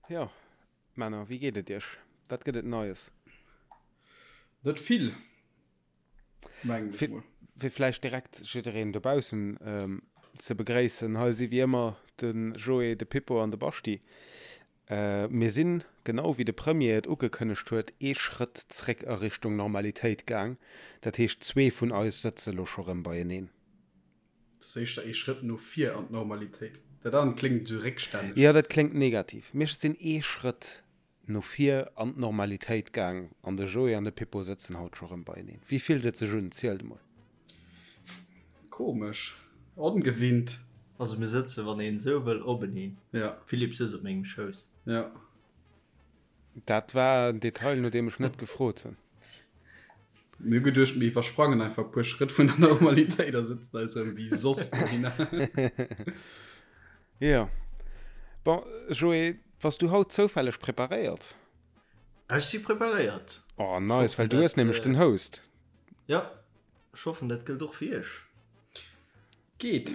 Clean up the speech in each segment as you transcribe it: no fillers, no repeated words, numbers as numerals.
Jo, Männer, wéi geet et iech? Wat gëtt et Neies? Net vill, mengen ech mol. Fir vläicht direkt jiddereen dobaussen ze begréissen, hei si wéi ëmmer de Joé, de Pippo an de Baschti. Mir sinn, genau wéi de Premier et ugekënnegt huet, ee Schrëtt zréck a Richtung Normalitéit gaang. Dat heescht, zwee vun eis sëtze lo scho rëm beieneen. Dat ass éischter ee Schrëtt no vir an d'Normalitéit. Dat anert kléngt esou réckstänneg. Jo, dat kléngt negativ. Mir sinn ee Schrëtt no vir an d'Normalitéit gaang an de Joé an de Pippo sëtzen haut scho rëm beieneen. Wéi fillt et sech un? Zielt emol. Komesch. Ongewinnt. Also mir sëtzen, wann een esou wëll, openeen. Ja. Philippe sëtzt op mengem Schouss. Ja. Dat war en Detail, no deem ech net gefrot hunn. Mir hu geduecht, mir iwwersprangen einfach e puer Schrëtt vun der Normalitéit a sëtzen eis erëm wéi soss dohinner. Jo. Bon, Joé, bass du haut zoufälleg preparéiert? Ech si preparéiert. Oh, nice, well du hues nämlech den Host. Jo, ech hoffen, dat gëllt och fir iech. Geet.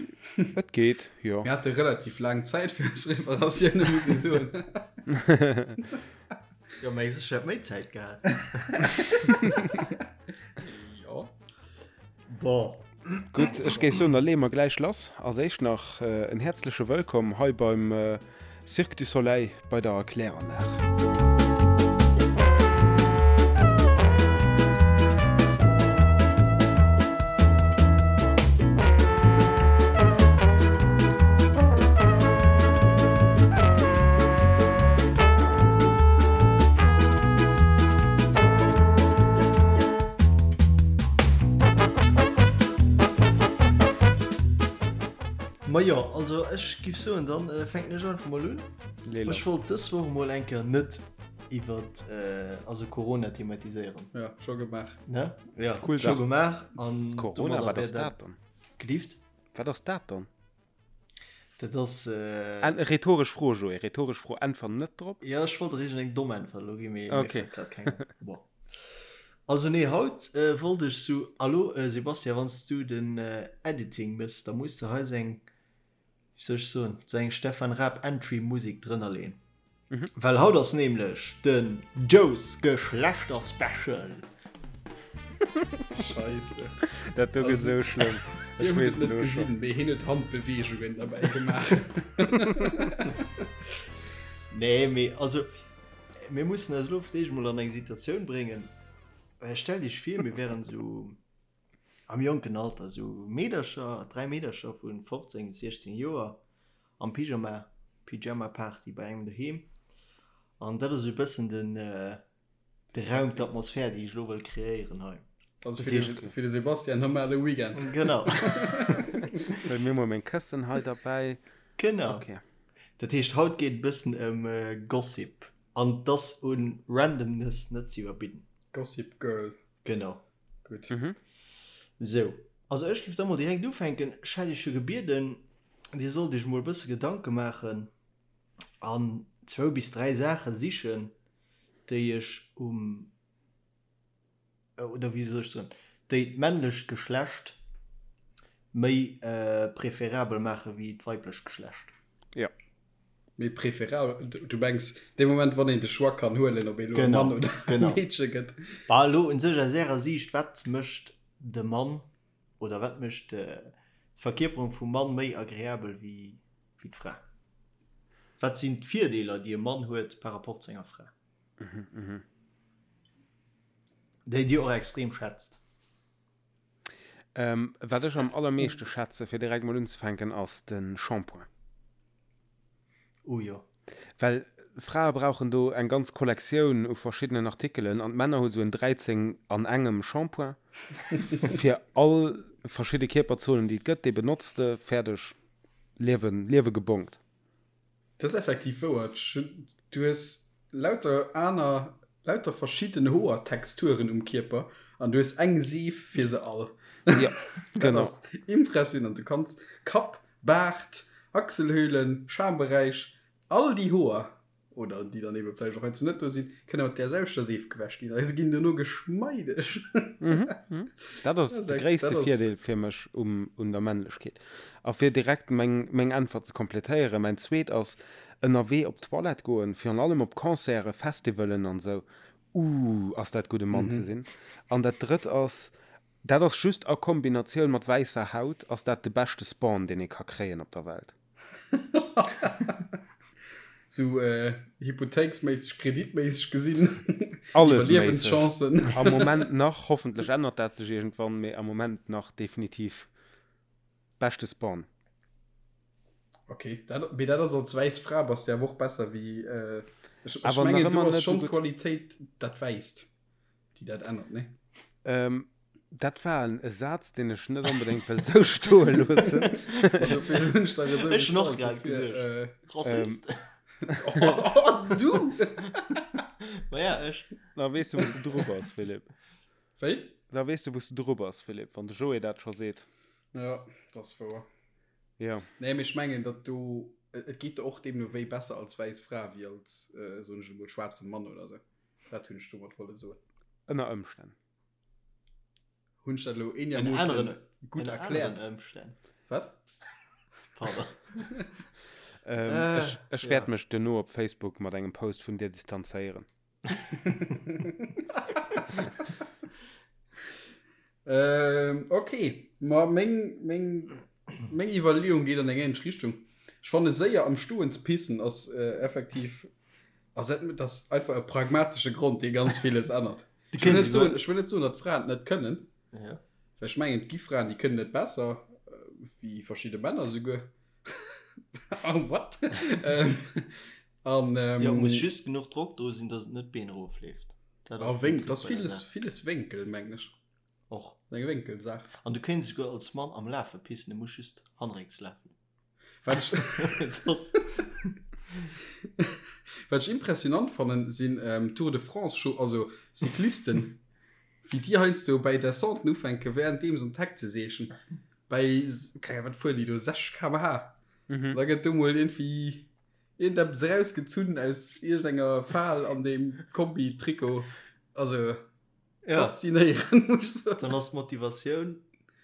Et geet, jo. Mir hate relativ laang Zäit fir eis Preparatioune, muss ee soen. Jo, mä ech hätt méi Zäit gehat. Jo. Bon. Gutt, ech géif soen, da leeë mer gläich lass. Als éischt nach en häerzleche Wëllkomm hei beim Cirque du Soleil bei der Kläranlag. Majo, also ech giff soen, dann fänken ech einfach mol un. Ech wollt dës Woch mol eng Kéier net iwwert also Corona thematiséieren. Ja, scho gemaach. Ne? Ja, cool scho gemaach. An Corona, wat ass dat dann? Gelift? Wat ass dat dann? Dat ass. Äh... Rhetoresch Fro, Joé, rhetoresch Fro, äntwer net drop. Ja, ech wollt der iergend eng domm Äntwert elo ginn, mee okay. mir fält grad keng an. Bon. Also nee, haut äh, wollt ech sou, Allo äh, Sebastian, wann s du den äh, Editing mëss, da muss de hei sou eng, wéi soll ech soen, sou eng Stefan Raab Entry Musik drënner leen. Mhm. Well haut ass nämlech den Joe's Geschlechter Special. Scheisse. Dat do gëtt sou schlëmm. Dir hutt et net gesinn, mee hien huet Handbeweegungen derbäi gemaach. Nee, mee also mir mussen eis elo fir d'éischt emol an eng Situatioun bréngen. Stellt iech vir, mir wären esou am jonken Alter, esou Meedercher, 3 Meedercher vu 15 bis 16 Joer am Pyjama, Pyjama Party bei engem doheem. An dat ass esou e bëssen den, de Raum, d'Atmosphär, déi ech elo wëll kreéieren hei. Also fir de, fir de Sebastian normale Weekend. Genau. Well mir mol meng Këssen hei derbäi. Genau. Okay. Dat heescht, haut geet e bëssen ëm Gossip. An 't ass un Randomness net ze iwwerbidden. Gossip Girl. Genau. Gutt. Sou. Also ech géif da mol direkt ufänken. Ech hätt iech jo gebieden, dir sollt iech mol e bësse Gedanke maachen an zwou bis dräi Saache sichen, déi ech um, oder wéi soll ech soen, déi d'männlecht Geschlecht méi preferabel maache wéi d'weiblecht Geschlecht. Jo. Méi preferabel, du mengs dee Moment, wann een de Choix kann huelen, ob ee lo e Mann oder e Meedche gëtt. Bah, elo un sech aus Ärer Siicht, wat mécht de Mann oder wat mécht d'Verkierperung vum Mann méi agreabel wéi d'Fra? Wat sinn d'Virdeeler, déi e Mann huet par rapport zu enger Fra? Déi Dir och extrem schätzt? Wat ech am allermeeschte schätze, fir direkt mol unzefänken, ass de Shampoing. Oh jo. Well Frae brauchen do eng ganz Kollektioun u verschiddenen Artikelen an d'Männer hu sou en 13 an engem Shampoing fir all verschidde Kierperzonen, déi et gëtt. Dee benotz de, fäerdeg, Liewen, Liewe gebongt. Dat ass effektiv wouer. Du hues lauter aner, lauter verschidden Hoertexturen um Kierper an du hues eng Seef fir se all. Ja, genau. Dat ass impressionant. Du kanns Kapp, Baart, Achselhöhlen, Schamberäich, all déi Hoer. oder déi dann ebe vläicht och heiansdo net do sinn, kënne mat där selwechter Seef gewäsch ginn a se ginn duerno geschmeideg. Dat ass de gréisste Virdeel fir mech um, un der Männlechkeet. A fir direkt meng, meng Äntwert ze kompletéieren, mäin zweet ass, ënnerwee op d'Toilette goen, virun allem op Concerten, Festivalen an esou, Ooh, ass dat gutt e Mann ze sinn. An dat drëtt ass, dat ass just a Kombinatioun mat wäisser Haut, ass dat de beschte Spawn, deen ee ka kréien op der Welt. Sou hypothéiksméisseg, kreditméisseg gesinn, Alles méisseg. Iwwerliewenschancen. Am Moment nach, hoffentlech ännert dat sech iergendwann, mee am Moment nach definitiv beschte Spawn. Ok, dat, mee dat ass als wäiss Fra bass de awer och besser wéi, ech, ech Awer nach mengen do ëmmer ass net esou schonn gutt. d'Qualitéit dat Wäisst, déi dat ännert, nee? Ähm, dat war en e Saz, deen ech net onbedéngt wëll sou stoe loossen. Ma dofir hunn ech dach esou Ech hunn och gestallt, grad dofir, geduecht. äh, Rassist. Oh, du! Ma ja, ech. Da weess de, wou s de dru bass, Philippe. Wéi? Da weess de, wou s de dru bass, Philippe, wann de Joé dat scho seet. Ja, dat ass wouer. Ja. Nee, mee ech mengen, datt do, et geet der och deemno wéi besser als wäiss Fra wéi als, soen ech emol, schwaarze Mann oder sou. Dat hunn ech domat wolle soen. Ënner Ëmstänn. Hunn ech dat elo eenermoossen gutt erkläert? Ënner aneren Ëmstänn. Wat? Pardon. Ech, ech wäert mech duerno op Facebook mat engem Post vun dir distanzéieren. Ähm, okay. Ma meng, meng, meng Iwwerleeung geet an eng ähnlech Richtung. Ech fanne séier am Stoen ze pissen ass äh, effektiv ass dat, dat ass einfach e pragmatesche Grond, dee ganz villes ännert. Ech wëll net soen, ech wëll net soen, datt Fraen et net kënnen. Ja. Well ech mengen, et gi Fraen, déi kënnen et besser, äh, wéi verschidde Männer souguer. Oh, what? ähm, an, ähm, Jo, muss just genuch Drock do sinn, datt et net d'Been erofleeft. Dat ass ah, Wénk, dat ass villes, villes Wénkel, mengen ech. Och. Eng Wénkelsaach. An du kéints esouguer als Mann am Lafe pissen, du muss just hannerécks lafen. Wat ech, Soss. wat ech impressionant fannen, sinn ähm, Tour de France, Scho also Cyclisten, wéi déi heiansdo bei Descenten ufänken, währenddeem se an d'Heck ze seechen. Bei, keng Ahnung, wat fueren déi do, 60 km/h. Mhm. Da gëtt do mol iergendwéi iergendeppes erausgezunn aus iergendenger Fal an deem Kombi-Trikot. Also. Ja. Faszinéierend, muss ich soen. Dann ass d'Motivatioun,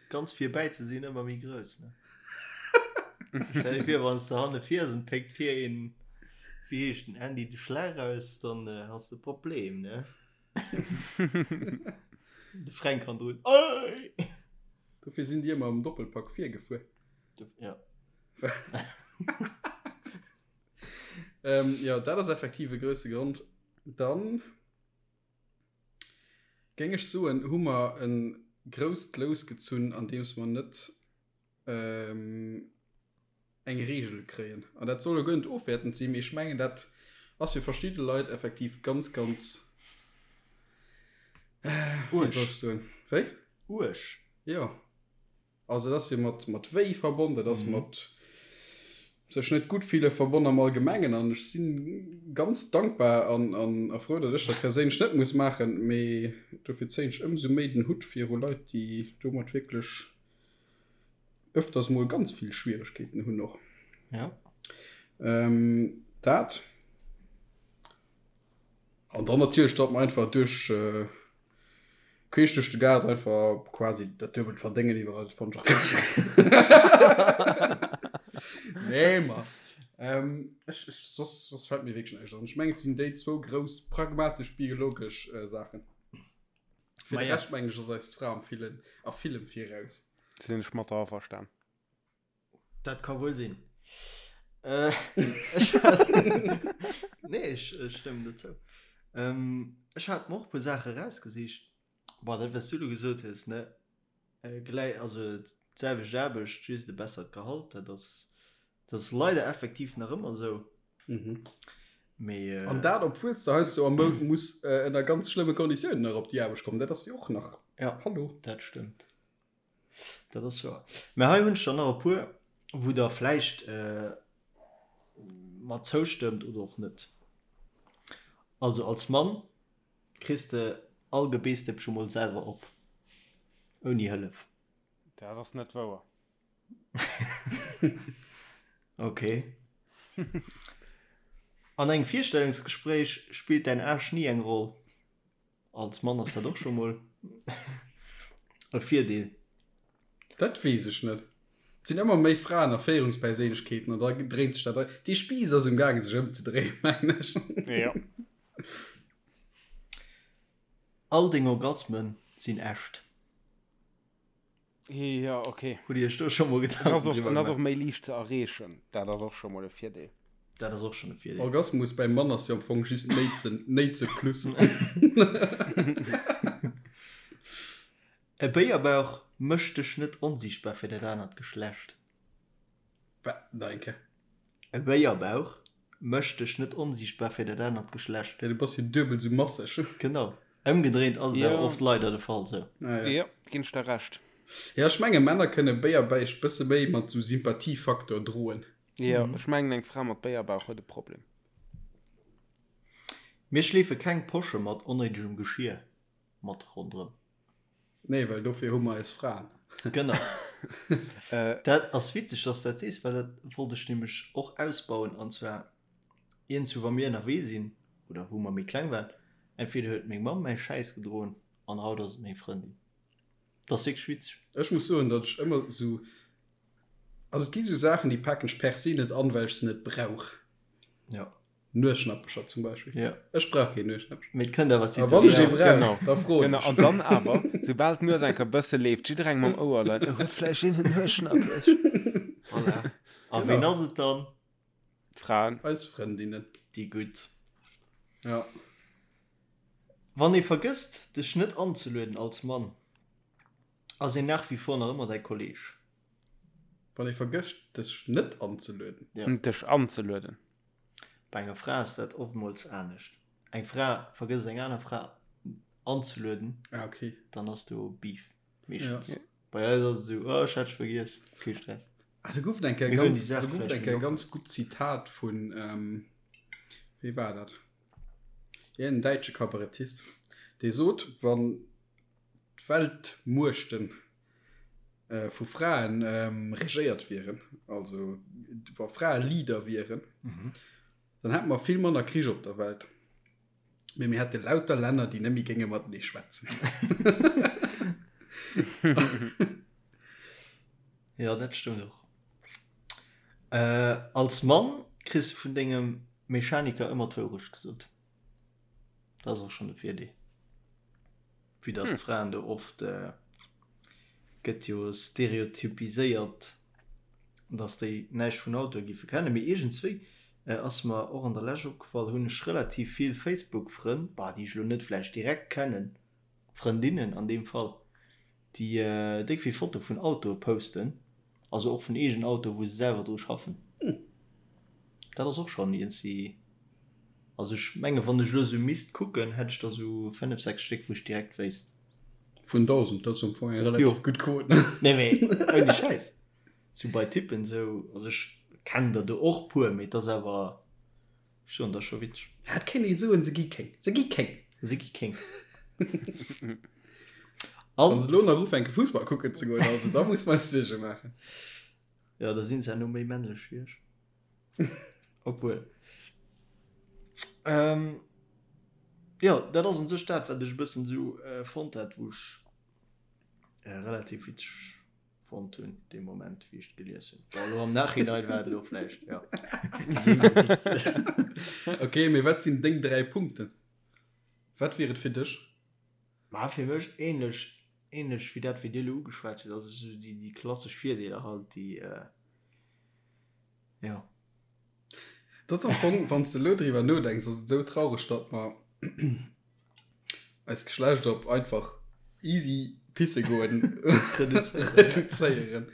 ganz virbäi ze sinn, ëmmer méi grouss, ne? Stell dir vir, wann s de hanne fiers an péckt vir een, wéi heescht den, Andy de Schlag aus, dann has de e Problem, ne? De Fränk hannendrun, Ey! Dofir sinn déi ëmmer am Doppelpack virgefuer. Ja. Ähm, jo, dat ass effektiv e grousse Grond. Dann. Géing ech soen, hu mer e grousst Lous gezunn, andeems mer net eng Reegel kréien. An dat soll elo guer net ofwäertend sinn, mee ech mengen, dat ass fir verschidde Leit effektiv ganz, ganz, wéi soll ech soen, wéi? Uerg. Jo. Also et ass jo mat, mat Wéi verbonn, dat ass mat sech net gutt fille verbonn am Allgemengen. An ech si ganz dankbar an, an a frou, datt ech dat perséinlech net muss maachen. Mee dofir zéien ech ëmsou méi den Hutt viru Leit, déi domat wierklech ëfters mol ganz vill Schwieregkeeten hunn och. Ja. Ähm, dat. An dann natierlech, datt mer einfach duerch, Queesch duerch de Gaart einfach quasi dat duebelt verdéngen iwwerall, dat fannt ech och ganz Nee, ma ähm, ech, ech, soss, soss fällt mir wierklech näischt an. Ech mengen, et sinn déi zwou grouss pragmatesch biologesch äh, Saachen. Fir de Rescht mengen ech ass eis d'Fra am villen, a villem viraus. Sinn ech mat der averstan. Dat ka wuel sinn. Äh, ech hat Nee, ech, ech stëmmen der zou. Ähm, ech hat mer och e puer Saache rausgesicht. Bon, dat, wat s du elo gesot hues, ne, äh, gläi, also d'selwecht Aarbecht, just e bessert Gehalt, dat ass, dat ass leider effektiv nach ëmmer esou. Mhm. Mee, äh, An dat, obwuel s de heiansdo am Mount muss äh, ënner ganz schlëmme Konditiounen nach op déi Aarbecht kommen. Dat ass jo och nach. Ja, Hallo. dat stëmmt. Dat ass wouer. Mä hei hunn ech der nach e puer, wou Der vläicht mer zoustëmmt oder och net. Also als Mann kriss de all Gebeessdëppche mol selwer op, ouni Hëllef. Dat ass net wouer. Ok. An engem Virstellungsgespréich spillt däin Age ni eng Roll. Als Mann ass dat och scho mol e Virdeel. Dat weess ech net. Et sinn ëmmer méi Fraen a Féierungsperséinlechkeeten an da dréint sech dat. Dee Spiiss ass um gaangen sech ëmzedréien, mengen ech. Jo. All deng Orgasmen sinn echt. Jo, ok. Hutt Dir Iech do scho mol Gedanken driwwer gemaach? En ass och méi liicht ze erreechen. Dat ass och scho mol e Virdeel. Dat ass och schonn e Virdeel. Orgasmus beim Mann ass jo am Fong just Néitsen, Néitse plus. E Béierbauch mécht dech net onsiichtbar fir dat anert Geschlecht. Wat? Nach eng Kéier. E Béierbauch mécht dech net onsiichtbar fir dat anert Geschlecht. Ja, du bass jo duebel sou masseg. Genau. Ëmgedréint ass et awer oft leider de Fall sou. Ah, ja. Jo, ginn ech der Recht. Ja, ech menge Männer kënne Béierbäich bësse méi mat sou Sympathiefaktor droen. Jo, ech mengen eng Fra mat Béierbauch huet e Problem. Mir schleefe keng Posche mat onnéidegem Geschir mat ronderëm. Nee, well dofir hu mer eis Fraen. Genau. Dat ass witzeg, dass du dat sees, well dat wollt ech nämlech och ausbauen. An zwar iergendwou, wa mir ënnerwee sinn oder wou mer méi kleng waren, entweder huet meng Mamm mäi Schäiss gedroen an haut ass et meng Frëndin. Dat ass wierklech witzeg. Ech muss soen, datt ech ëmmer esou, also et gi sou Saachen, déi paken ech per se net an, well ech se net brauch. Jo. Nueschnappecher zum Beispill. Ja. Ech brauch keen Nueschnappecher. Mee et kënnt awer A wann ech ee brauch, Genau. da froen Genau. ech. An dann awer, soubal d'Nues eng Kéier bësse leeft, jidderengem am Ouer leien, Oh, huet vläicht een en Nueschnappech? Voilà. A ween ass et dann? D'Fraen. Eis Frëndinnen. Déi gutt. Ja. Wann ee vergësst, dech net anzelueden als Mann, ass een nach wie vor nach ëmmer däi Kolleg. Wann ee vergësst, dech net anzelueden. Ja. Dech anzelueden. Bei enger Fra ass dat oftmools anescht. Eng Fra vergësst eng aner Fra anzelueden, Ah, okay. dann ass do Beef meeschtens. Ja. Bei eis ass et esou, oh, ech hat dech vergiess, kee Stress. Ah, do gouf et eng Kéier Mir huelen ganz, déi Saach do gouf et vläicht eng méi Kéier locker. ganz gutt Zitat vun, ähm, wee war dat? Ja, en däitsche Kabarettist, dee sot, wann d'Weltmuechten vu Fraen regéiert wieren, also wa Frae Leader wieren, dann hätte mer vill manner Krich op der Welt. Mee mir hätte lauter Länner, déi net méi géinge matenee schwätzen. Jo, dat stëmmt och. Als Mann kriss de vun dengem Mechaniker ëmmer d'Wourecht gesot. Dat ass och schonn e Virdeel. Vue dass d'Fraen do oft, gëtt jo stereotypiséiert, dass déi näischt vun Autoe giffe kennen. Mee iergendswéi ass mer och an der Lescht opgefall, hunn ech relativ vill Facebook-Frënn, bah, déi ech elo net vläicht direkt kennen, Frëndinnen an deem Fall, déi déck vill Fotoe vun Autoe posten, also och vun eegenen Autoe wou se selwer dru schaffen. Dat ass och schonn iergendwéi, also ech menge wann ech elo esou misst kucken, hätt ech der esou 5, 6 Stéck wou ech direkt wéisst. Vun 1.000, dat ass am Fong eng relativ gutt Quot. Nee mee ouni Schäiss, sou bei Typen esou, also ech kennen der do och puer, mee et ass awer, ech soen, dat ass scho witzeg. Ja, et kéint ee soen, se gi kéng, se gi kéng. Se gi kéng. Wann se elo nach ufänke Fussball kucken ze goen, also da muss mer eis Suerge maachen. Jo, da sinn se herno méi männlech wéi ech. Obwuel. Ähm, jo, dat ass un sech dat, wat ech e bëssen esou äh, fonnt hat, wou ech äh, relativ witzeg fonnt hunn, dee Moment, wéi ech et gelies hunn. Bon, elo am Nachhinein war et elo vläicht, ja. Semi-witzeg. Okay, mee wat sinn deng 3 Punkten? Wat wier et fir dech? Ma fir mech ähnlech, ähnlech wéi dat, wéi Dir elo ugeschwat hutt, also esou déi, déi klassesch Virdeeler halt, déi, äh, jo. Dat ass am Fong, wann s de elo driwwer nodenks, ass et esou traureg, datt mer eist Geschlecht op einfach easy pisse goen reduzéieren.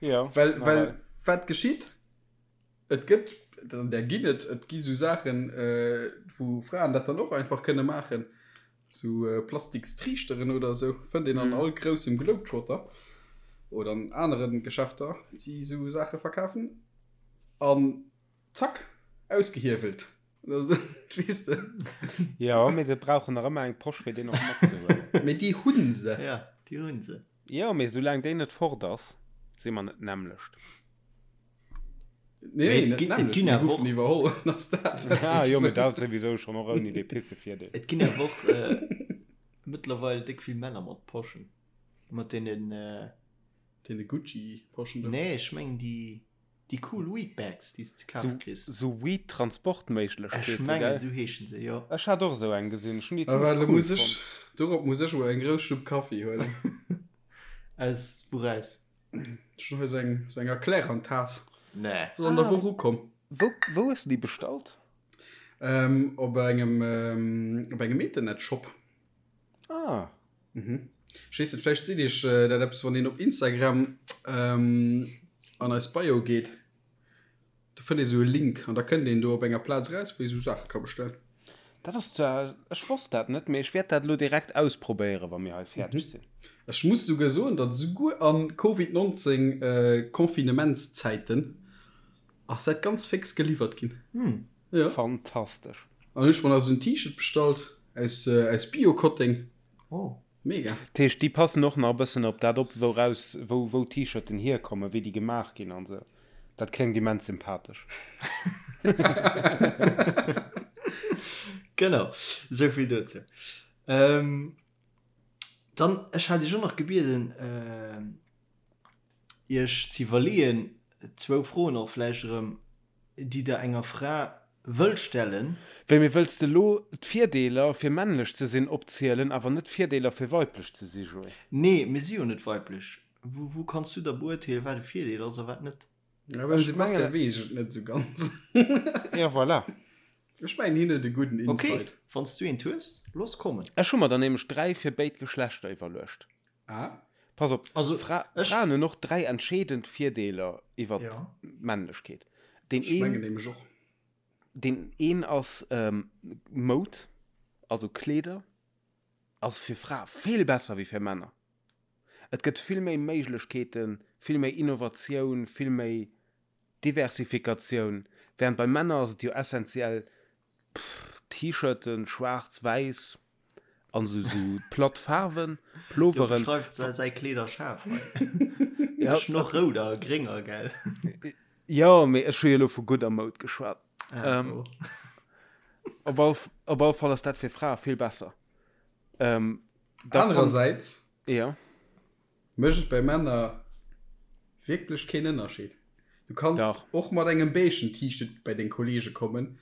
Jo, Well, well wat geschitt? Et gëtt, an där ginn et, et gi sou Saachen, wou Fraen dat dann och einfach kënne maachen, sou Plastikstriichteren oder sou, fënnt een an all groussem Globetrotter oder an anere Geschäfter, déi sou Saache verkafen. An zack, ausgehiewelt. Weess de? Jo, mee se brauchen nach ëmmer eng Posch, fir deen och matzehuelen. Mee déi hunn se. Ja, déi hunn se. Jo, mee soulaang déi net fort ass, si mer net d'nämmlecht. Nee, nee, net et ginn awer och iwwerholl ass dat. Ah jo, mee dat souwisou schonn och ouni dee Pissevirdeel. Et ginn awer och mëttlerweil déck vill Männer mat Poschen, mat deenen. Deene Gucci-Poschen do? Nee, ech mengen déi déi cool Weed-Bags, déi s de ze kafe kriss. Sou Weed-Transportméiglechkeete, Ech mengen, esou heeschen se, jo. Ech hat och esou eng gesinn, ech hunn déi Ah, zimmlech well, cool muss ech, fonnt. dorop muss ech mol eng grouss Schlupp Kaffi huelen. Aus wouraus? Ech hunn hei sou eng, sou eng Erklärantaass. Nee. Ass an der Woch ukomm. Wou, wou hues de déi bestallt? Ähm, op engem, op engem Internetshop. Ah. Mhm. Ech weess net, vläicht seet iech dat eppes, wann een op Instagram ähm, an eis Bio geet, do fënnt ee sou e Link an da kënnt een do op enger Plaz eraus, wou ee sou Saache ka bestellen. Dat ass zwar, ech wosst dat net, mee ech wäert dat elo direkt ausprobéieren, wa mir hei fäerdeg sinn. Ech muss souguer soen, datt esouguer a Covid 19 äh, Confinementszäiten ass dat ganz fix geliwwert ginn. Hm. Ja. Fantastesch. An hunn ech mer nach esou en T-Shirt bestallt aus, äh, aus Bio-Kotteng. Oh. Mega. Dat heescht, déi passen och nach e bëssen op dat op, wouraus, wou, wou d'T-Shirten hierkommen, wéi déi gemaach ginn an esou. Dat kléngt immens sympathesch. Genau, esou vill dozou. Ähm, dann, ech hat iech och nach gebieden, iech ze iwwerleeën, zwou Froen och vläicht erëm, déi der enger Fra wëllt stellen. Wéi, mee wëlls de elo d'Virdeeler fir männlech ze sinn opzielen, awer net d'Virdeeler fir weiblech ze si, Joé? Nee, mir si jo net weiblech. Wou, wou kanns du da beurteelen, wat e Virdeel ass a wat net? Ja, beim Sebastian weess ech et net esou ganz. Ja, voilà. Ech mengen, hien huet e gudden Okay, Insight. wann s du eent hues, looss kommen. Ech hu mer der nämlech 3 fir béid Geschlechter iwwerluecht. Ah. Pass op, Also, Fra ech. Fraen hunn och 3 entscheedend Virdeeler iwwer Ja. d'Männlechkeet. Deen Ech mengen een, nämlech och. deen een ass Moud, also Kleeder, ass fir Frae vill besser wéi fir Männer. Et gëtt vill méi Méiglechkeeten, vill méi Innovatioun, vill méi Diversifikatioun, während bei Männer ass et jo essentiell T-Shirten, schwaarz, wäiss an sou sou platt Faarwen, Do Ploveren. beschreift se säi Kleederschaf hei. Ja, Ech hunn och rout a grénger, gell? jo, mee ech hu jo elo vu gudder Moud geschwat. Ah, Ähm, oh. op all, op all Fall ass dat fir Frae vill besser. Ähm, da fann, Anerersäits ja. mécht et bei Männer wierklech keen Ënnerscheed. Du kanns Dach. och mat engem beigen T-Shirt bei deng Kollege kommen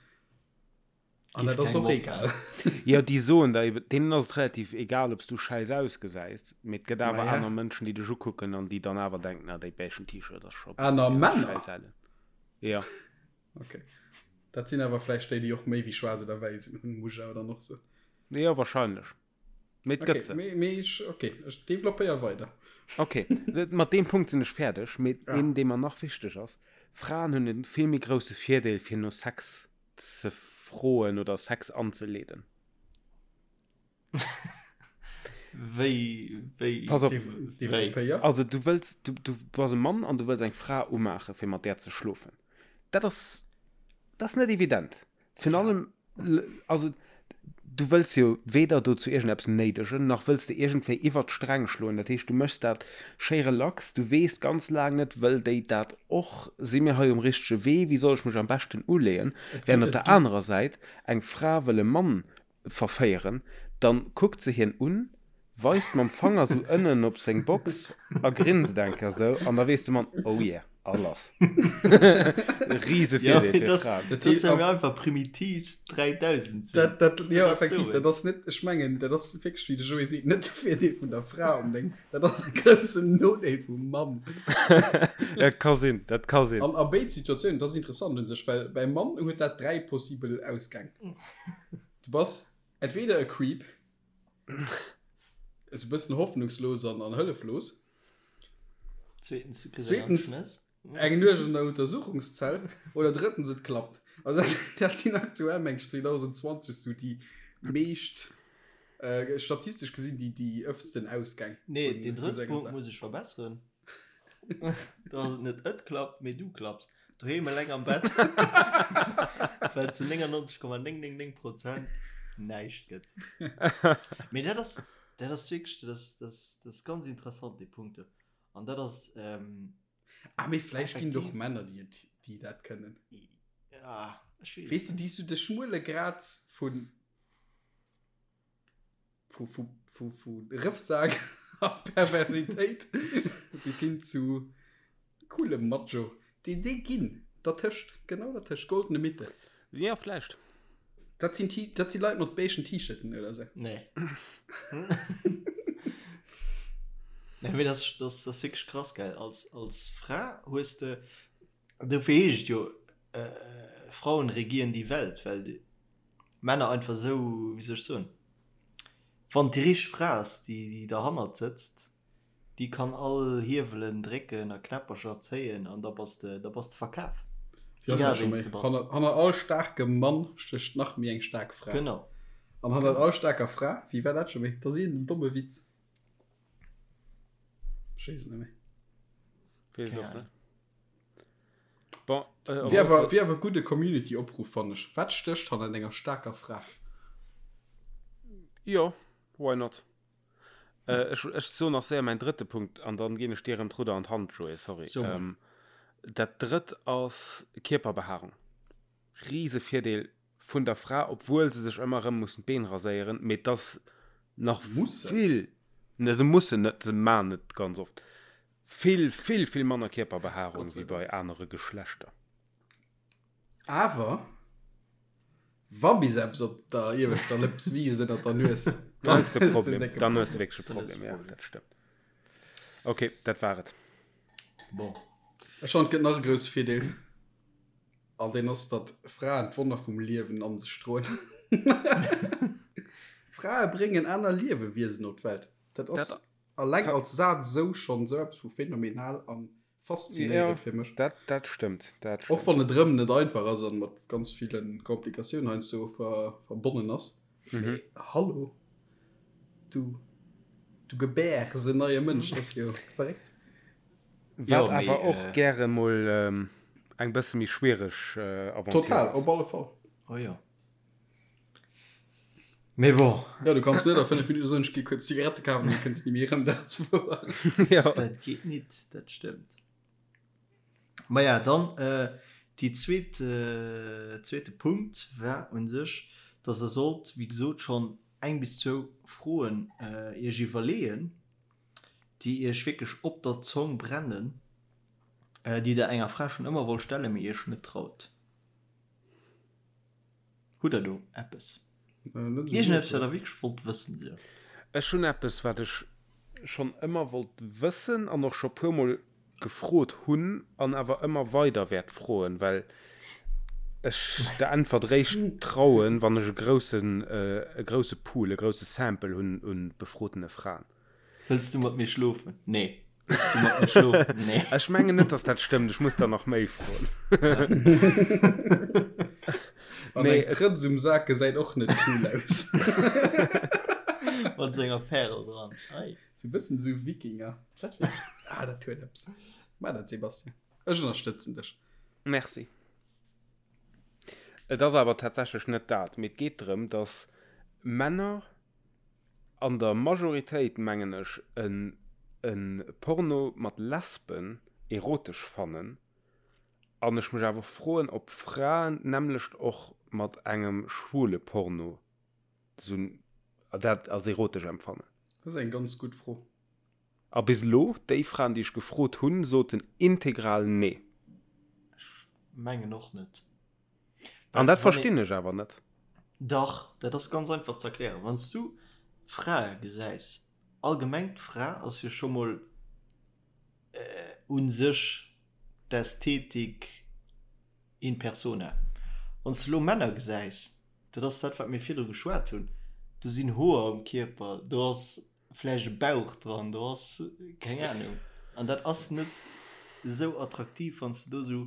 an Giff dat ass kengem och opfalen. egal. Jo, déi soen der eben, deenen ass et relativ egal, ob s du schäiss ausgesäis, mee et gëtt awer Maja. aner Mënschen, déi dech ukucken an déi dann awer denken, ah, déi beigen T-Shirt ass scho Aner Männer? schäiss ellen. Ja. Okay. Dat sinn awer vläicht déi, déi och méi wéi schwaarz oder wäiss hunn, muss ech awer dann och soen. Jo, wahrscheinlech. Mee et Okay, gëtt se. mee, mee ech, okay, ech developpéier weider. Okay, mat deem Punkt sinn ech fäerdeg. Mee Ah. een, dee mer nach wichteg ass, Fraen hunn e vill méi grousse Virdeel, fir no Sex ze froen oder Sex anzeleeden. Wéi, wéi, Pass op, wéi? Developpéier. also du wëlls, du, du bass e Mann an du wëlls eng Fra umaachen, fir mat där ze schlofen. Dat ass, dat ass net evident. Virun allem, also du wëlls jo weder dozou iergendeppes néidegen, nach wëlls de iergendwéi iwwert d'Sträng schloen. Dat heescht, du méchs dat schéi relax, du weess ganz laang net, wëll déi dat och, si mir hei um richtege Wee, wéi soll ech mech am beschten uleeën? Während op der anerer Säit eng Fra wëll e Mann verféieren, dann kuckt se hien un, weist mam Fanger sou ënnen op seng Box a grinst eng Kéier sou an da weess de Mann, oh yeah, a lass. Riese Ja, Virdeel mee fir das, Fraen. das ass ja mir einfach primitivst 3000 sinn. Dat, dat, jo, Wat ass effektiv, do? dat ass net, ech mengen, dat ass wierklech, wéi de Joé seet, net de Virdeel vun der Fra onbedéngt, dat ass e groussen Nodeel vum Mann. Dat ka sinn, dat ka sinn. An a béid Situatiounen, dat ass interessant un sech, well beim Mann huet dat 3 possibel Ausgäng. Du bass entweder e Creep, esou e bëssen hoffnungslos an, an hëlleflos. Zweetens, du kriss eng Zweetens, Schnëss. eng Nuecht an der Untersuchungszell. Oder drëttens, et klappt. Also dat sinn aktuell, meng ech, 2020 sou déi meescht, äh, statistesch gesinn, déi, déi ëftsten Ausgäng. Nee, vun- deen vun drëtte sou enger Punkt Saach. muss ech verbesseren. Da ass et net et klappt, mee du klapps. Doheem eleng am Bett, well zu 99,999 Prozent näischt gëtt. Mee dat ass, dat ass wierklech, dat ass, dat ass, dat ass ganz interessant, dee Punkt do. An dat ass, ähm, Ah, mee vläicht ginn et och effektiv. Männer, déi et. Déi dat kënnen. Ja, ech weess. Weess de, déi sou de schmuele Grad vun vu, vu, vu, vu Rëffsak a Perversitéit bis hin zu coolem Macho. Déi, déi ginn dertëscht, genau dertëscht, goldene Mitte. Ja, vläicht. Dat sinn, dat si Leit mat beigen T-Shirten oder sou. Nee. Nee, mee das, das, das wierklech krass, gell. Als, als Fra hues de, dofir heescht et jo, äh, Frauen regieren die Welt, well déi Männer einfach esou, wéi soll ech soen, wann et déi richteg Fra ass, déi, déi derhannert sëtzt, Déi kann all Hiewelen drécken a Knäppercher zéien an da bass de, da bass de verkaf. Wéi ass dat scho méi? Hanner, hanner all staarkem Mann stécht nach méi eng staark Fra. Genau. An hannert all staarker Fra, wéi war dat scho méi? Dat ass iergendeen domme Witz. Ech weess et net méi. Weess et och net. Bon, äh, op Wier alle awer, Fall. wier awer e gudde Community-Opruff, fannen ech. Wat stécht hannert enger staarker Fra? Jo, why not? Äh, ech, ech so nach séier mäin drëtte Punkt an dann ginn ech dir erëm d'Rudder an d'Hand, Joé, sorry. So mol. Ähm, dat drëtt ass Kierperbehaarung. Rise Virdeel vun der Fra, obwuel se sech ëmmer erëm mussen d'Been raséieren, mee et ass nach Mussen? vill, ne, se mussen net, se man et ganz oft, vill, vill, vill manner Kierperbehaarung Gott sei wéi bei anere Geschlechter. Awer wa bis eppes op der ieweschter Lëps wiisst ënnert der Nues, dann hues de e Problem. Dann hues de wierklech e Problem, ja, dat stëmmt. Ok, dat war et. Bon. Ech fannen, et gëtt nach e grousse Virdeel, an deen ass, datt Fraen d'Wonner vum Liewen an sech droen. Frae bréngen aner Liewewiesen op d'Welt. Dat ass alleng als Saz esou schonn esou eppes vu phänomenal an Faszinéierend fir mech. Dat, dat stëmmt, dat stëmmt. Och wann et erëm net einfach ass an mat ganz ville Komplikatiounen heiansdo ver, verbonnen ass. Mhm. Mee hallo, du, du gebäers en neie Mënsch, dat ass jo verréckt. Wat Jo, mee, awer och äh, gäre mol ähm, eng bësse méi schwiereg äh, Aventure Total, ass. op alle Fall. Oh jo. Mee bon. Ja, du kanns net a 5 Minuten soen, ech gi kuerz Zigarette kafen, du kënns ni méi erëm, dat ass wouer. Ja. Dat geet nit, dat stëmmt. Maja, dann äh, déi zweet, äh, zweete Punkt war un sech, dass der sollt, wéi gesot, schonn eng bis zwou Froen äh, iech iwwerleeën, déi iech wierklech op der Zong brennen, äh, déi der enger Fra schonn ëmmer wollt stellen, mee iech net traut. Hutt der do eppes? Iergendeppes, wat der wierklech wollt wëssen? Esou. Ech hunn eppes, wat ech schonn ëmmer wollt wëssen an och scho puermol gefrot hunn an awer ëmmer weider wäert froen, well ech der Äntwert réischt trauen, wann ech e groussen, e grousse Pool, e grousse Sample hunn u befrotene Fraen. Wëlls du mat mir schlofen? Nee. Wëlls du mat mir schlofen? Nee. Ech mengen net, dass dat stëmmt. Ech muss der nach méi froen. An nee, eng Trëtz um Sak gesäit och net cool aus. Mat senger Pärel dran. Ei. Sou e bëssen sou Wikinger. Dat wär, ah, dat huet eppes. Maach dat, Sebastian. Ech ënnerstëtzen dech. Merci. Et ass awer tatsächlech net dat, mee et geet drëm, dass Männer An der Majoritéit mengen ech en en Porno mat Lesben erotesch fannen an ech mech awer froen op Fraen d'nämmlecht och mat engem schwule Porno sou dat als erotesch empfannen. Dat ass eng ganz gutt Fro. A bis elo, déi Fraen déi ech gefrot hunn, soten integral nee. Ech mengen och net. An dat verstinn ech awer net. Dach, dat ass ganz einfach ze erklären. Wann s du Frae gesäis, allgemeng d'Fra ass jo scho mol u sech d'Ästhetik in persona. Wann s du elo Männer gesäis, dat ass dat wat mir virdru geschwat hunn, do sinn Hoer um Kierper, do ass vläicht e Bauch dran, do ass keng Anung. An dat ass net esou attraktiv, wann s du do esou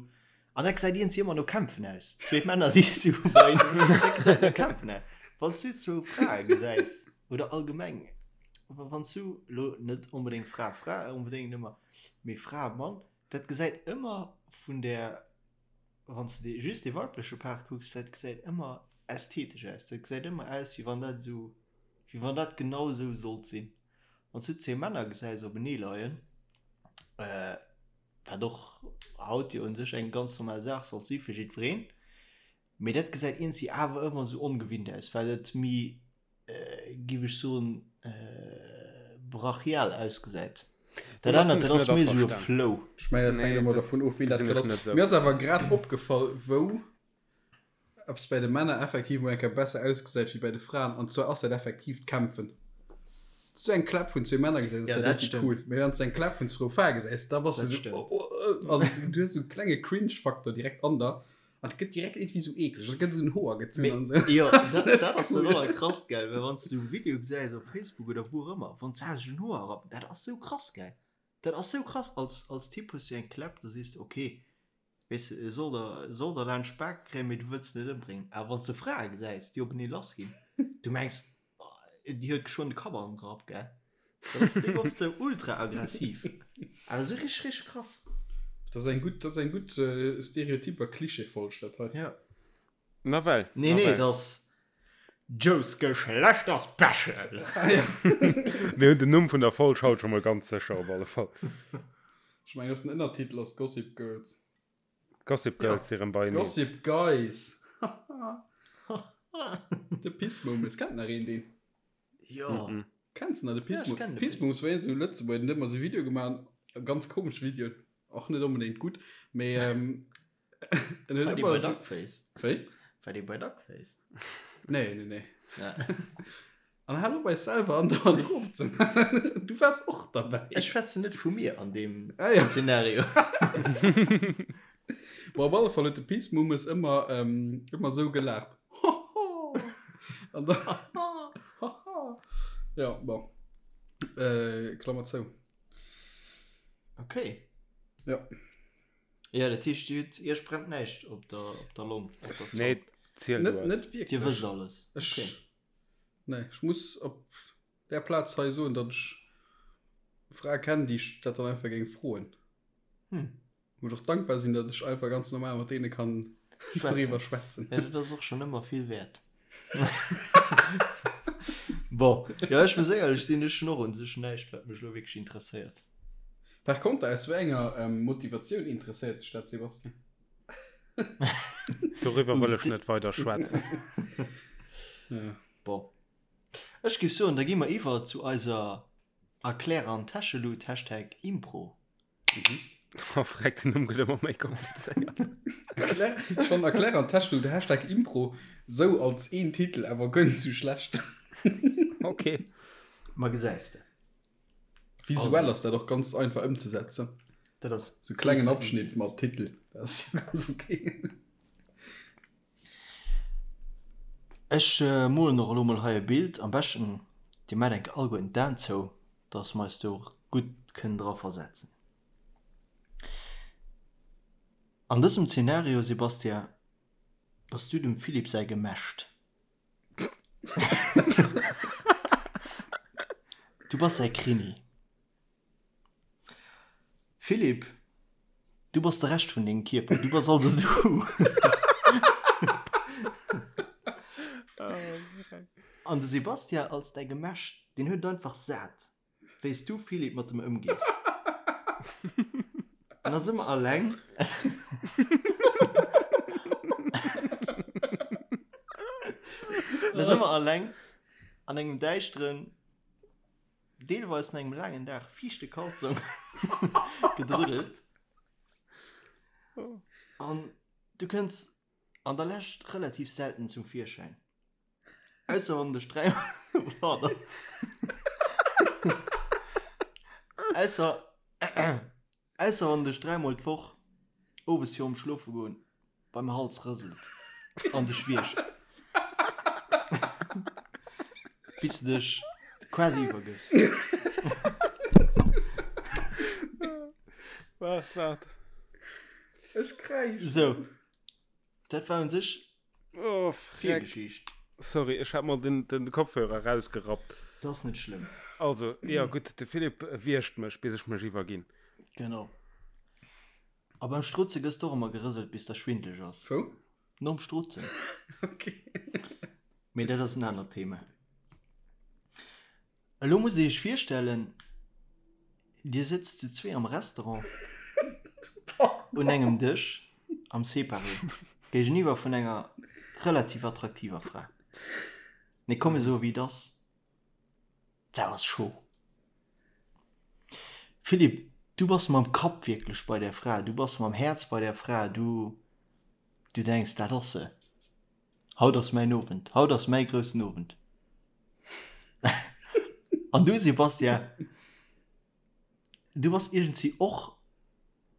An dat gesäit iergendwéi ëmmer no Kämpfen aus. Zwee Männer, déi sou beieneen, dat gesäit no Kämpfen aus. Wann s du zwou Frae gesäis, oder allgemeng, wann s du elo net onbedéngt Fra, Fra onbedéngt ëmmer, mee Fra, Mann, dat gesäit ëmmer vun der, wann s de just dee weibleche Part kucks, dat gesäit ëmmer ästhetesch aus. Dat gesäit ëmmer aus, wéi wann dat esou, wéi wann dat genau esou sollt sinn. Wann s du zwee Männer gesäis openee leien, äh. Wat och haut jo un sech eng ganz normal Saach sollt si fir jiddwereen. Mee dat gesäit iergendwéi awer ëmmer esou ongewinnt aus, well et méi, géif ech soen, brachial ausgesäit. Dat anert, dat ass méi esou e Flow. Ech mengen, dat hänkt ëmmer dervun of, wien dat grad ass. Mir ass awer grad opgefall, wou eppes bäi de Männer effektiv mol eng Kéier besser ausgesäit wéi bäi de Fraen, an zwar ass dat effektiv d'Kämpfen. Wann s du eng Kläpp vun zwee Männer gesäis, ass dat richtig cool. Mee wann s du eng Kläpp vun zwou Frae gesäis, da bass du esou, oh, oh, also du hues esou e klenge Cringe-Faktor direkt an der. An et gëtt direkt irgendwie sou eekleg, et gëtt sou en Hoer gezunn an sou. Jo, dat, dat ass dat allerkrasst, gell, well wann s du e Video gesäis op Facebook oder wou och ëmmer, wann se sech en Hoer rappen, dat ass sou krass, gell. Dat ass sou krass, als, als Typ hues du eng Kläpp, da sees de, ok, weess de, e soll der, e soll der laanscht d'Bak kréien, mee du wëlls en net ëmbréngen. Awer wann s de Frae gesäis, déi openee lassginn, du mengs, Déi huet geschwënn de Kapp an den Grapp, gell? Dat ass déck oft sou ultra aggressiv. Awer sou richteg, richteg krass. Dat ass eng gutt, dat ass eng gutt Stereotyp a Klischeefolg, dat hei. Ja. Nawell. Nee, nee, dat ass Joes Geschlechterspecial. Mir hunn den Numm vun der Folg haut scho mol ganz sécher op alle Fall. Ech mengen och den Ënnertitel ass Gossip Girls. Gossip Girls si rëm beieneen. Gossip Guys! De Pissmomes, kennt nach een deen? Jo. Kenns de nach de Pissmomes? Pissmomes war een esou Lëtzebuerger, den huet ëmmer esou Videoe gemaach, ganz komesch Videoen, och net onbedéngt gutt, mee en huet War dee ëmmer bei esou. Duckface? Wéi? War dee bei Duckface? Nee, nee, nee. Ja. An hal op eis selwer andauernd erof ze maachen. Du waars och derbäi. Ech schwätzen net vu mir an deem Ah, ja. Szenario. Bon, op alle Fall huet de Peace Mummes ëmmer, ähm, ëmmer sou gelaacht. Hoho! An da, haha. Ja, bon. Äh, Klammer zou. Okay. Ja. Ja, dat heescht, Dir hutt, Iech brennt näischt op der, op der Long, op der Zong. Nee, ziel du Net, eis. net Dir wierklech. wësst alles. Ech, Okay. Nee, ech muss op där Plaz hei soen, datt ech Frae kennen, déi ech dat dann einfach géing froen. Hm. Wou ech och dankbar sinn, datt ech einfach ganz normal mat deene kann doriwwer schwätzen. Ja, dat ass och schonn ëmmer vill wäert. Bon, jo, ech muss éierlech sinn, ech hunn och un sech näischt, wat mech elo wierklech interesséiert. Par konter, aus wéi enger Motivatioun interesséiert dech dat, Sébastien? Doriwwer wëll ech net weider schwätzen. Ja. Bon. Ech géif soen, da gi mer iwwer zu eiser Erklär an Täschelut, Hashtag Impro. Oh, freck, den Numm gëtt ëmmer méi komplizéiert. Erklär, ech fannen Erklär an Täschelut, Hashtag Impro sou als een Titel awer guer net sou schlecht. Okay. Ma gesäis de. Visuell ass dat och ganz einfach ëmzesetzen. Dat ass Sou klengen Abschnitt mat Titel, dat ass ganz okay. Ech molen och elo mol hei e Bild. Am beschten dir maacht enke alleguerten d'Aen zou, dass mer eis do och gutt kënnen dra versetzen. An dësem Zenario, Sebastian, bass du dem Philippe säi Gemächt. Du bass säi Krimi. Philippe, du bass de Rescht vun dengem Kierper, du bass also du. An de Sebastian als däi Gemächt, deen huet et einfach sat. Wéi s du, Philippe, mat em ëmgees. En ass ëmmer alleng. En ass ëmmer alleng an engem däischteren, deelweis no engem laangen Dag fiichte Kalzong gedruddelt. An du kënns an der Lescht relativ selten zum Virschäin. Ausser wann dech 3 Pardon. Ausser ausser wann dech dräimol d'Woch owes virum Schlofe goen beim Hals rëselt an dech wiergt. Bis de dech quasi iwwergëss. Waart, waart. Ech kräischen. Sou. Dat war un sech Oh, freck. Virgeschicht. Sorry, ech hat mol den, den Kopfhörer rausgerappt. Dat ass net schlëmm. Also, ja gutt, de Philippe wiergt mech, bis ech mech iwwerginn. Genau. A beim Strutze gëss d'och ëmmer gerëselt, bis der schwindeleg ass. Wou? Nom Strutzen. Okay. Mee dat ass en anert Thema. Elo musst Dir Iech virstellen, Dir sëtzt zu zwee am Restaurant. Un engem Dësch am Séparé, géigeniwwer vun enger relativ attraktiver Fra. Mee komm mir soe wéi et ass, d'Sau ass scho. Philippe, du bass mam Kapp wierklech bei där Fra, du bass mam Häerz bei där Fra, du, du denks, dat ass se, haut ass mäin Owend, haut ass mäi groussen Owend. An du Sebastian, du bass iergendwéi och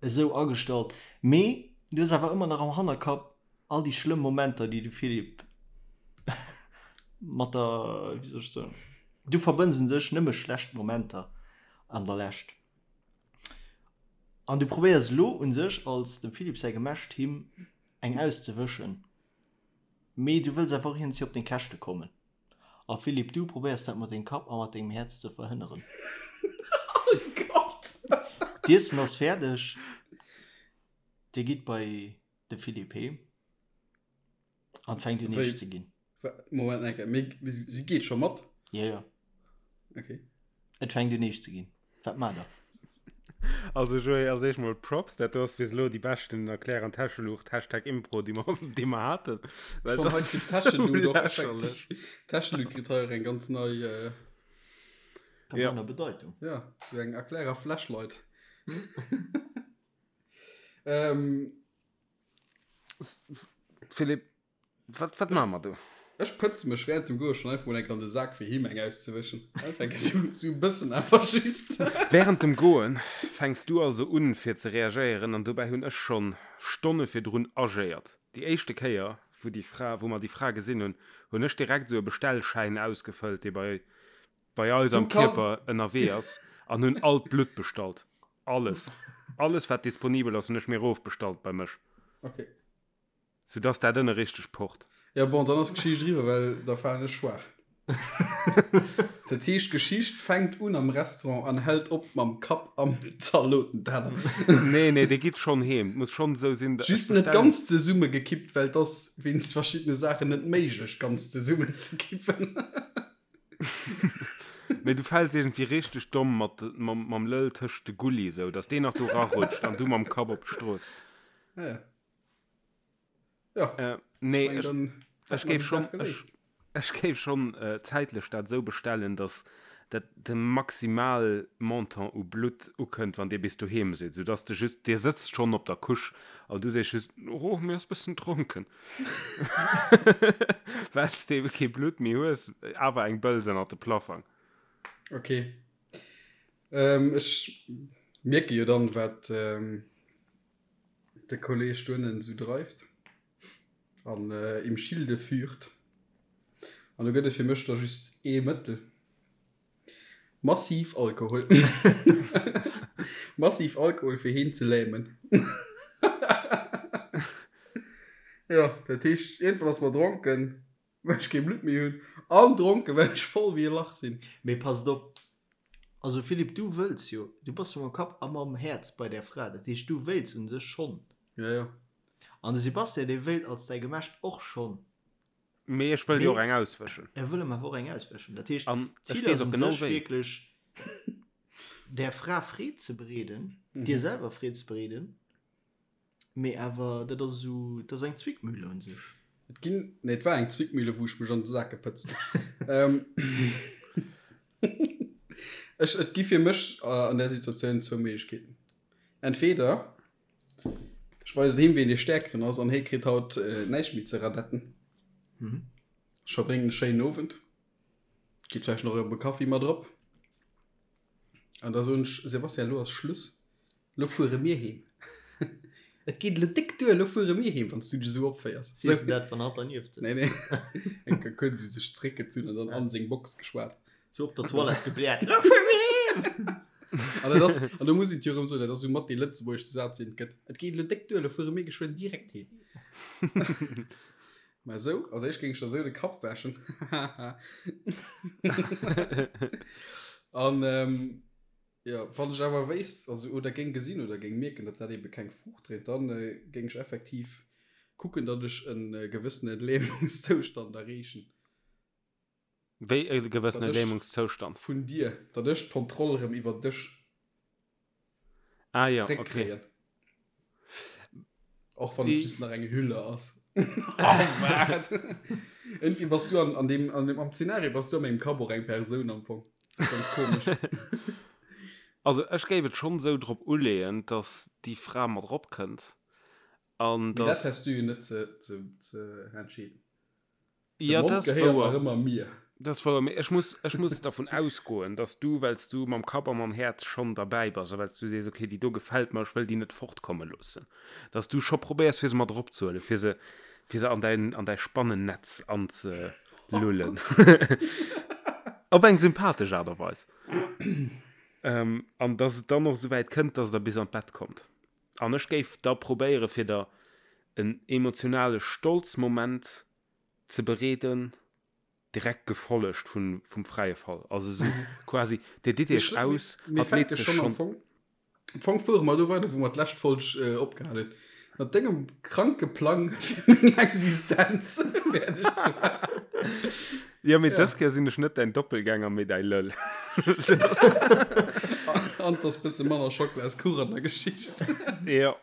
esou agestallt, mee du hues awer ëmmer nach am Hannerkapp all déi schlëmm Momenter, déi de Philippe mat der, wéi soll ech soen, du verbënns un sech nëmme schlecht Momenter an der Lescht. An du probéiers elo un sech als dem Philippe säi Gemescht him eng auszewëschen, mee du wëlls awer och iergendwéi op deng Käschte kommen. A Philippe, du probéiers dat mat dengem Kapp a mat dengem Häerz ze verhënneren. Oh Gott! D'Iessen ass fäerdeg. Dir gitt bei de Philippe heem an et fänkt un eescht ze ginn. Moment eng Kéier, mee si geet scho mat? Jo, jo. Okay. Et fänkt un eescht ze ginn. Wat maacht der? Also Joé, als éischt mol Props, dat do ass bis elo déi beschten Erklär an Täscheluucht, Hashtag Impro, déi mer, déi mer haten. Well Schon dat hei ass kritt d'Täscheluut sou och lächerlech. effektiv, d'Täscheluut kritt hei och eng ganz nei, äh, Ganz Ja. aner Bedeitung. ja, sou eng Erklärer Flashlight. Ähm, Philippe, Wat, wat maache mer do? Ech pëtze mech während dem Goe schon einfach mol enk an de Sak fir him eng auszewëschen. Einfach enk esou, esou e bëssen einfach just. Während dem Goen fänks du also un fir ze reagéieren an dobäi hunn ech schonn Stonne virdrun agéiert. Déi éischte Kéier wou déi Fra, wou mer déi Fra gesinn hunn, hunn ech direkt esou e Bestellschäin ausgefëllt dee bei bei eis am Kierper ënnerwee ass an hunn all d'Blutt bestallt. Alles, alles wat disponibel ass hunn ech mir erofbestallt bei mech. Okay. Soudass dat ënne richteg pocht. Jo bon, dann ass d'Geschicht eriwwer, well da falen ech schwaach. Dat heescht, d'Geschicht fänkt un am Restaurant an hält op mam Kapp am Zalotenteller. Nee, nee, dir gitt schonn heem. Et muss schonn esou sinn, ech Just net bestellen. ganz zesummegekippt, well et ass wéinst verschiddene Saachen net méiglech, ganz zesummenzekippen. Mee du fäls iergendwéi richteg domm mat, mam, mam Lëll tëscht de Gulli, esou dass deen nach do rarutscht an du mam Kapp op d'Strooss. Ah ja. Ja. Äh, nee, Ich mein, ech, ech géif schon, ech, ech géif schon äh, zäitlech dat esou bestellen, dass dat de maximal Montant u Blutt ukënnt, wann Dir bis doheem sidd, soudass de just, Dir sëtzt schonn op der Couche an du sees just, oh, mir ass bëssen dronken, well s de ebe kee Blutt méi hues, awer eng Bëls ënnert de Plaffang. Okay. Ähm, ech mierke jo dann, wat ähm, De Kolleg doënnen sou dreift an im Schilde führt. An do gëtt et fir mech da just ee Mëttel, Massiv Alkohol. Massiv Alkohol fir heen ze lämen. Jo, dat heescht, iergendwann ass mer dronken, well ech kee Blutt méi hunn, an dronken, well ech voll wéi e Lach sinn. Mee passt op, also Philippe, du wëlls jo, du bass jo mam Kapp a mam Häerz bei där Fra, dat heescht du wéilts un sech schonn. Ja, ja. An de Sebastian, dee wéilt als däi Gemescht och schonn. Mee ech wëll jo och eng auswëschen. E wëll em awer och eng auswëschen. Dat heescht, An ech d'Zil weess ass och un genau sech wéi. wierklech, där Fra Freed ze bereeden, dir selwer Freed ze bereeden. Mee awer, dat ass esou, dat ass eng Zwickmühle un sech. Et ginn, nee, et war eng Zwickmühle, wou ech mech an de Sak gepëtzt hunn. Ech, et gi fir mech an där Situatioun zwou Méiglechkeeten. Entweder ech weisen him, wien dee Stäerkeren ass an hie kritt haut näischt méi ze radetten. Ech verbréngen e schéinen Owend, geet vläicht nach op e Kaffi mat erop an da soen ech, Sebastian, elo ass Schluss. Lo fuere mir heem. Et geet elo déck duer, lo fuere mir heem, wann s du dech esou opféiers. Sees de dat, wann hatt dernieft sëtzt? Nee, nee. Eng Kéier kuerz esou sech zeréckgezunn an dann an seng Box geschwat. Sou op der Toilette gebläert, Lo fuere mir heem! An dat ass, an do muss een et jo erëm soen, dat ass esou mat dee lëtzebuergeschste Saz, deen et gëtt, Et geet elo déck duer, lo fuere mir geschwënn direkt heem. Mä esou, als éischt géing ech der esou de Kapp wäschen. An, Jo, wann ech awer wéisst, also oder géing gesinn oder géing mierken, datt dat ebe keng Fruucht dréit, dann géing ech effektiv kucken, datt ech e gewëssene Lähmungszoustand erreechen. Wéi e gewëssene Datt ech Lähmungszoustand? Vun dir, datt ech d'Kontroll erëm iwwer dech Ah jo, okay. zréckkréien. Och wann et just nach eng Hülle ass. Oh, wat? Irgendwie bass du an, an dem, an dem, am Szenario bass du a mengem Kapp och eng Persoun am Fong. Das ist ganz komisch. Also ech géif et schonn esou drop uleeën, dass déi Fra mat erop kënnt an Mee dat dass. häss du jo net ze, ze, ze entscheeden. De Ja, Mond dat ass gehéiert wouer. nach ëmmer mir. Dat ass wouer, mee ech muss, ech muss dervun ausgoen, dass du, well s du mam Kapp a mam Häerz schonn derbäi bass a well s du sees, okay, déi do gefält mer, ech wëll déi net fortkomme loossen, dass du scho probéiers, fir se mat eropzehuelen, fir se, fir se an däin, an däi Spannennetz anzelullen. Op eng sympathesch Aart a Weis. An dass et dann och esouwäit kënnt, dass der bis an d'Bett kommt. An ech géif da probéiere fir der en emotionale Stolzmoment ze bereeden, direkt gefollegt vun vum fräie Fall. Also esou quasi, Dir ditt Iech aus, Mir hatt leet fänke sech schonn am schonn. Fong, am Fong fuere mer do weider, wou mer d'lescht Folg opgehal hunn. Mat dengem kranke Plang fir meng Existenz fäerdeg ze maachen. Jo, mee dës Kéier sinn ech net däin Doppelgänger, mee däi Lëll. An 't ass bësse manner Schocklaskuch an der Geschicht. Jo.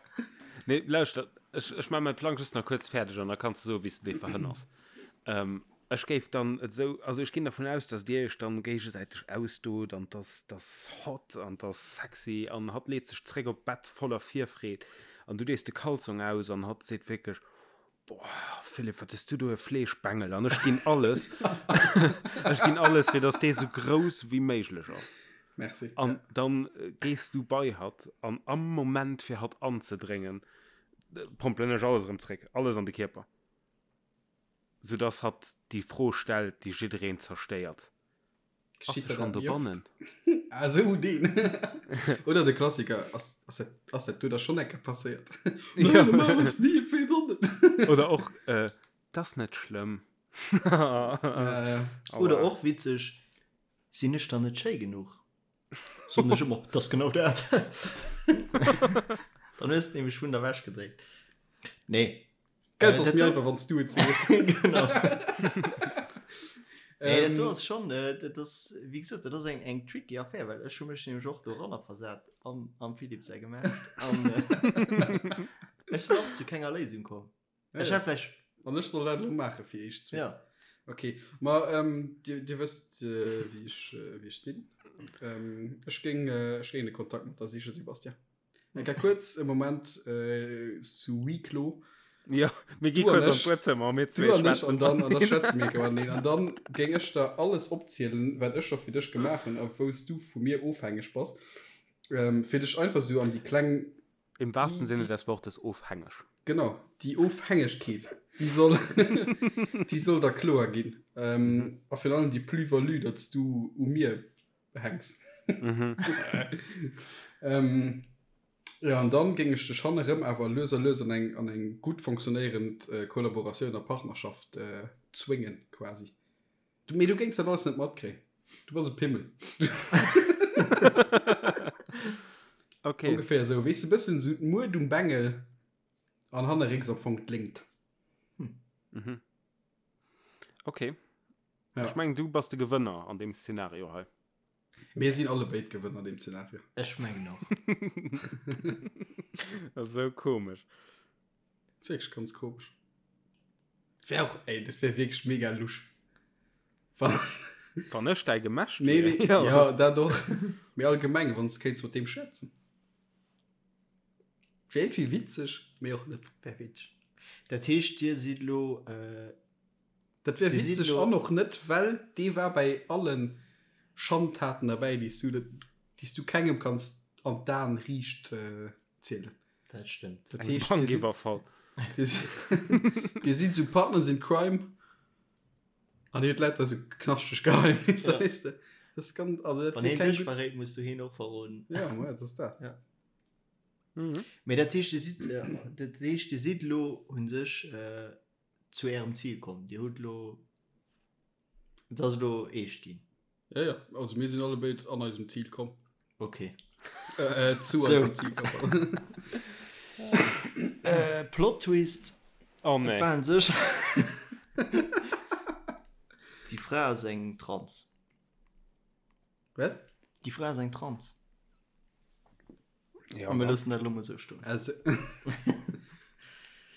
Nee, lauschter, ech, ech maache mäi Plang just nach kuerz fäerdeg an da kanns de soen, wéi s de dee verhënners. Ech géif dann et esou, also ech ginn dervun aus, dass Dir Iech dann géigesäiteg ausdot an dass dass hot an dass sexy an hatt leet sech zréck op d'Bett voller Virfreed an du dees de Kalzong aus an hatt seet wierklech, Boah Philippe, wat hues du do e Fleeschbengel an ech ginn alles, ech ginn alles fir dass dee sou grouss wéi méiglech ass. Merci. An dann gees du bei hatt an am Moment fir hatt anzedréngen, pompelen ech alles erëm zréck, alles an de Kierper. Soudass hatt déi Fro stellt, déi jiddereen zerstéiert, Ass Geschitt se der schonn dat méi oft? dobannen? Ah, sou deen. Oder de Klassiker, Ass, ass dat, ass dat do da schonn eng Kéier passéiert? Nein, Ja. normal ass ni, wéi dann net? Oder och, äh, 't ass net schlëmm. Ja, ja. Oder Aua. och witzeg, Sinn ech dann net schéi genuch? Soen ech ëmmer, 't ass genau dat. Dann hues de nämlech vun der Wäsch gedréckt. Nee. Gell, Äh, ass dat méi do- einfach, wann s du et sees. Genau. Nee, dat do Ähm, ass schon, äh, dat ass, wéi gesot, dat ass eng, eng tricky Affär, well ech hu mech nämlech och doranner versat, am, am Philippe säi Gemächt. An äh, ech sinn och zu kenger Léisung komm. ja, Ech ja. hätt vläicht, An ech soll dat elo maache fir iech zwee. ja. Okay, ma ähm, dir, dir wësst, äh, wéi ech, äh, wéi ech sinn. Ähm, ech géing, äh, ech géing de Kontakt mat der sichen, Sebastian. Eng Kéier kuerz e Moment sous huis clos. Jo, mir gi Du an kuerz an ech. d'Buedzëmmer, mir Du zwee an ech schwätzen an dann, an da mateneen. schwätze mir enke mateneen. An dann géing ech der alles opzielen, wat ech scho fir dech gemaach hunn a wou s du vu mir ofhängeg bass, fir dech einfach sou an déi kleng, Im wahrsten déi, Sinne déi, des Wortes ofhängeg. genau, déi Ofhängegkeet, déi soll, déi soll der kloer ginn. A virun allem déi Plus-value, datt s du u mir hänks. Mhm. ähm, ja, an dann géing ech dech hannerëm awer lues a lues an eng, an eng gutt fonctionnéierend äh, Kollaboratioun a Partnerschaft äh, zwéngen, quasi. Du, mee du géings dat alles net matkréien. Du bass e Pimmel. Okay. Ongeféier esou, weess de, bëssen esou d'Mued um Bengel an hannerrécks am Fong d'Léngt. Mhm. Okay. Ja. Ech mengen, du bass de Gewënner an deem Szenario hei. Mir sinn alle béid Gewënner an deem Szenario. Ech mengen och. Das ass sou komesch. Das ist wirklich ganz komisch. Wär och, ey, dat wär wirklich mega lusch. Wann, Wann ech däi Gemächt nee, wier. nee, Ja. ja, dat och. Mee allgemeng, wann s kéints mat deem schwätzen. Wär irgendwie witzeg, mee och net. Wär witzeg. Dat heescht, dir sidd lo, äh, Dat wär Dir sidd witzeg lo- an och net, well dee war bei allen Schandtaten derbäi, déi s du net, déi s du kengem kanns an d'Aen riicht zielen. Dat stëmmt. Dat Eng heescht, dir sidd, Bankiwwerfall. dir sidd, dir sidd sou Partners in Crime an dir hutt lauter sou knaschteg Geheimnisser, Ja. weess de. Dat ass ganz, also dat Wann wär heen keng dech gutt. verréit, muss du heen och verroden. Ja, ma dat ass dat. Ja. Mhm. Mee dat heescht, dir sidd, dat heescht, dir sidd elo u sech zu ärem Zil komm. Dir hutt elo, et ass elo eescht ginn. Ja, ja, also mir sinn allebéid an eisem Zil komm. Okay. Äh, äh, zu So. eisem Zil komm. Äh, Plot Twist, Oh et nee. war un sech Déi Fra ass eng Trans. Wat? Déi Fra ass eng Trans. Ja, A mir dann. loossen dat elo mol esou stoen. Also.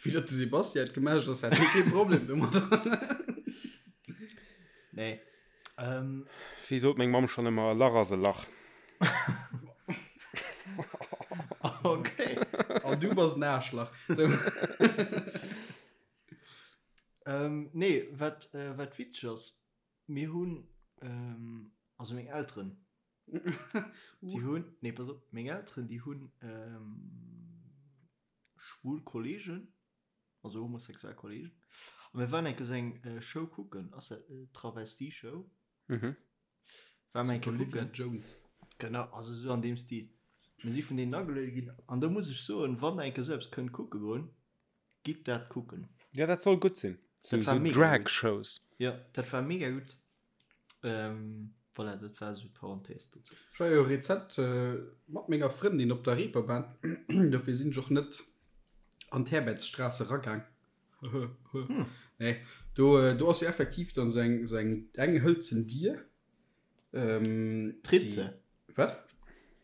Vue datt de Sebastian et gemellt ass, hätt hie kee Problem domadder. Nee. Ähm. Wéi sot meng Mamm schonn ëmmer, e Lach ass e Lach. Okay. An du bass en Aarschlach. Sou. Ähm, nee, wat, äh, wat witzeg ass, mir hunn, ähm, also meng Elteren, déi hunn, nee, pass op, meng Elteren, déi hunn, ähm, schwul Kollegen, also homosexuell Kollegen, a mir waren eng Kéier sou eng Show kucken, ass dat Travestie-Show? Mhm. War mir eng Kéier Olivia kucken. Jones. Genau, also sou an deem Stil. Mir si vun deenen ageluede ginn, an do muss ech soen, wann der eng Kéier sou eppes kënnt kucke goen, gitt dat kucken. Ja, dat soll gutt sinn. Sou, Dat war sou mega gutt. Drag-Shows. Jo, dat war mega gutt. Ähm, voilà, dat war esou d'Parenthèse dozou. Ech war jo rezent mat menger Frëndin op der Reeperbahn, dofir sinn ech och net an d'Herbertsstraße eragaang. Nee, do, do ass jo effektiv dann esou eng, esou eng, eng hëlzen Dier. Ähm, D'Ritze. Wat?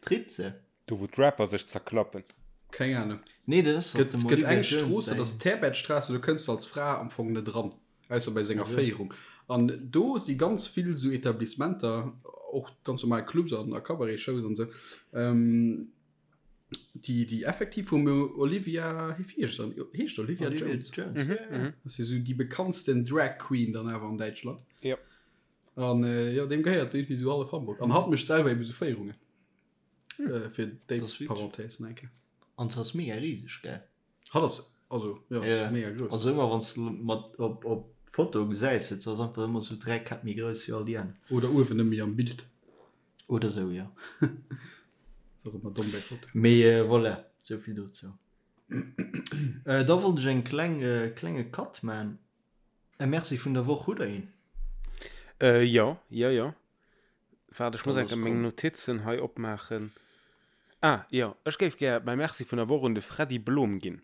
D'Ritze. Do wou d'Rapper sech zerklappen. Keng Ahnung. Nee, dat ass Gëtt, dem gëtt Olivia eng Jones Strooss, dat säin. ass d'Herbertstraße, do kënns de als Fra am Fong net eran, ausser bei senger Also. Féierung. An do si ganz vill esou Etablissementer, och ganz normal Clubs an a Cabaret-Shows an esou, ähm, déi, déi effektiv vum Olivia, wéi heescht dann, heescht Olivia, Olivia Jones? Jones, ja, ja. Dat ass jo esou déi bekanntsten Drag Queen dann awer an Däitschland. Jo. An äh, jo, deem gehéiert irgendwie esou hallef Hamburg. An hatt mécht selwer eben esou Féierungen. Äh, fir déi Das ist witzig. Parenthèse nach eng Kéier. An se ass mega riseg, gell? Hatt ass, also, jo, Ja. ass mega grouss. Also ëmmer wann s de mat op op Foto gesäis, se ass einfach ëmmer sou 3 Käpp méi grouss wéi all déi aner. Oder uewen net méi am Bild. Oder sou, jo. Ass och ëmmer domm bei Fotoen. Mee voilà, sou vill dozou. Da wollt ech eng kleng klenge Cut man. E Merci vun der Woch, hutt der een? Äh, jo, jo, jo. Waart, ech muss Da enke lass meng komm. Notizen hei opmaachen. Ah, jo, ech géif gär mäi Merci vun der Woch un de Freddy Blom ginn.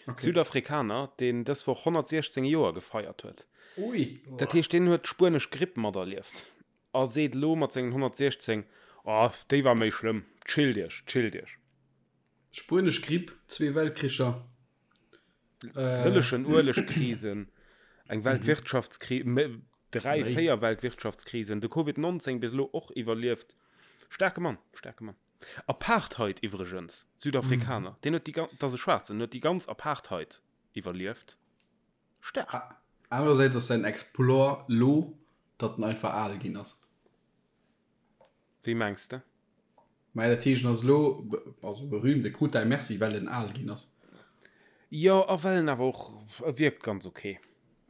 Okay. Südafrikaner, deen dës Woch 116 Joer gefeiert huet. Ui. Dat heescht, deen huet d'spuenesch Gripp materlieft a seet elo mat sengen 116, Oh, déi war méi schlëmm. Chillt iech, chillt iech. Spuenesch Gripp, zwee Weltkricher. Sëllegen Uelegkrisen, eng Weltwirtschaftskris, dräi, véier Weltwirtschaftskrisen, de Covid 19 bis elo och iwwerlieft. Staarke Mann, staarke Mann. Apartheid iwwregens, Südafrikaner, deen huet déi ganz, dat ass e Schwaarzen, huet déi ganz Apartheid iwwerlieft. Staark. Anerersäits ass säin Exploit lo, datt en einfach al ginn ass. Wéi mengs de? Mä dat heescht, en ass elo also berühmt, e krut däi Merci, well en al ginn ass. Jo, a well en awer och, e wierkt ganz ok.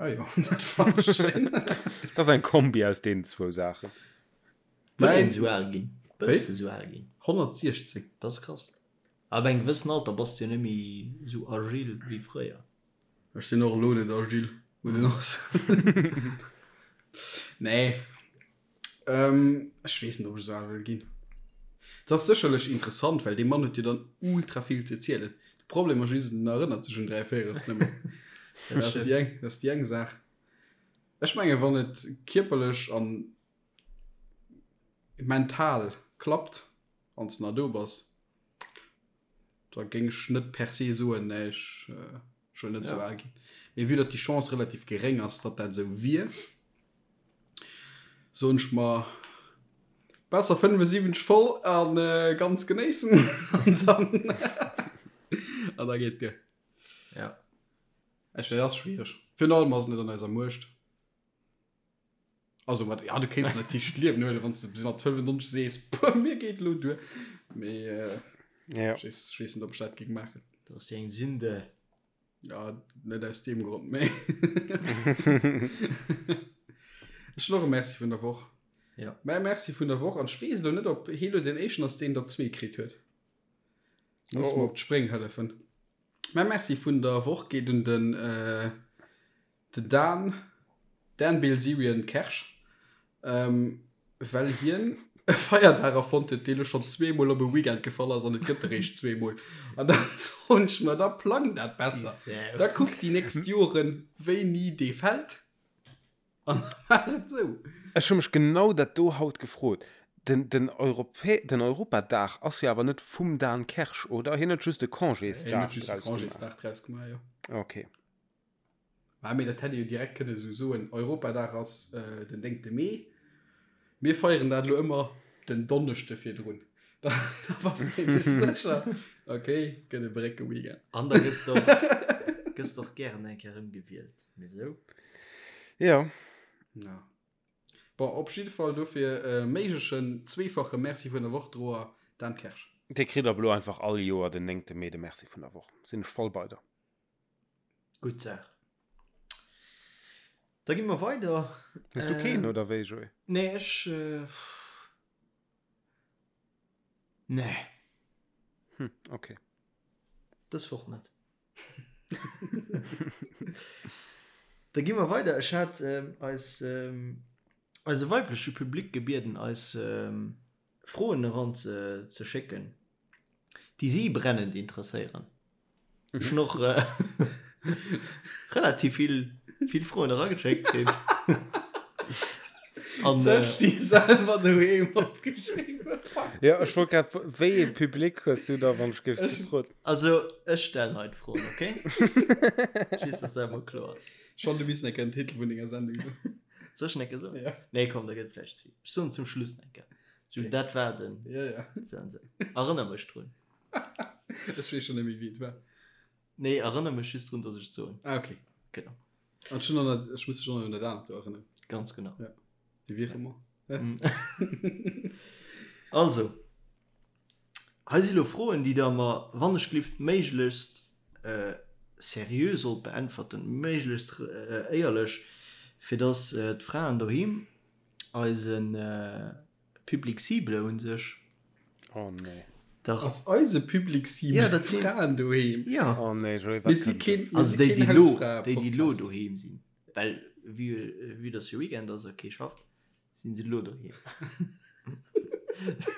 Ah jo, dat fannen ech schéin. Dat ass eng Kombi aus deenen zwou Saachen. Wëll een esou al ginn? Wëlls de esou al ginn? 116. Dat ass krass. Ab engem gewëssen Alter bass de jo net méi esou agil wéi fréier. Ech sinn och elo net agil, muss een och soen. Nee. Ähm, ech weess net, ob ech esou al wëll ginn. Dat ass sécherlech interessant, well dee Mann huet jo dann ultra vill ze zielen. De Problem ass just, en erënnert sech un 3 Véierels net méi. Dat ass déi eng, dat ass déi eng Saach. Ech menge wann et kierperlech an mental klappt, wann s de nach do bass, da géing ech net per se soen, nee, ech, ech wëll net esou al ginn. Mee vue datt déi Chance relativ geréng ass, datt dat esou wier, soen ech mer, besser 75 voll a ganz genéissen an dann an da geet duer. Ja. Ech, dat ass schwiereg. Virun allem ass et net an eiser Muecht. Also mat, ja, du kéints natierlech d'Liewen huelen, wann s de bis mat 95 sees, puh, mir geet elo duer. Mee äh, Ja. ech weess, ech weess net, ob ech dat géing maachen. Dat ass jo eng Sünde. Ja, net aus deem Grond, mee. Ech hunn och e Merci vun der Woch. Ja. Mäi Merci vun der Woch, an ech weess elo net, ob hie lo deen éischten ass, deen der zwee kritt huet. Muss Oh, mer oh. op d'Spréng hëllefen. Mäi Merci vun der Woch geet un den äh, Den Dan, Dan Bilzerian Kersch, well hien e Feierdag erfonnt huet, dee lo schonn zweemol op e Weekend gefall ass an et gëtt eréischt zweemol. An da soen ech mer, da plang dat besser. Da kuck déi nächst Joren, wéini dee fält an da maach et esou. Ech hu mech genau dat do haut gefrot. Den, den, Europä den Europadag ass jo awer net vum Dan Kersch, oder? Hien huet just e Congésdag draus gemaach. Congésdag draus gemaach, jo. Okay. Mä mee dat hätt ee jo direkt kënne esou soen, Europadag ass den néngte Mee, mir feieren dat elo ëmmer den Donneschde virdrun. Da bass de nämlech sécher, okay, gëtt e Brécke-Weekend. An da gëss de och, gëss de och gären eng Kéier erëmgewielt, mee sou. Jo. Ja. Bon, op jidde Fall dofir e méiglechen zweefache Merci vun der Woch Droer Dan Kersch. Dee kritt ab elo einfach all Joer den néngte Mee de Merci vun der Woch. Sinn ech voll bei der. Gutt Saach. Da gi mer weider. Hues du keen, oder wéi, Joé? Nee, ech. Nee. Hm, okay. Dës Woch net. Da gi mer weider. Ech hat eis, eise weibleche Public gebieden, eis Froen eran ze schécken, déi si brennend interesséieren. Ech hunn och relativ vill, vill Froen erageschéckt kritt. An, Sech déi selwer doheem opgeschriwwen. Jo, ech wollt grad, wéi ee Public hues du da, wann ech géif gefrot? Also, ech stellen hei d'Froen, okay? Just, dass dat emol kloer ass. Schonn, du misst enke den Titel vun denger Sendung soen. Soll ech en enke soen? Ja. Nee, komm, da gëtt et vläicht ze vill. Ech soen zum Schluss en enke. So, dat war den. Ja, ja. Sou an sou. Erënner mech drun. Ech weess schonn net méi, wéi et war. Nee, erënner mech just drun, dass ech et soen. Ah, okay. Genau. An schon an dat, ech muss dech schon an dat anert do erënneren. Ganz genau. Ja. Déi Virement. Also, hei si lo Froen, déi der mer, wann ech glift, méiglechst seriö sollt beäntwerten, méiglechst éierlech, fir dass d'Fraen doheem eise Public cible u sech. Oh nee. Dach. Ass eise Public cible ja, dat sinn d'Fraen doheem? Ja. Oh nee, Joé, wat kënnt keen, Also déi, déi lo, déi, déi lo doheem sinn. Well vue, vue dass jo Weekend ass a kee schafft, sinn se lo doheem.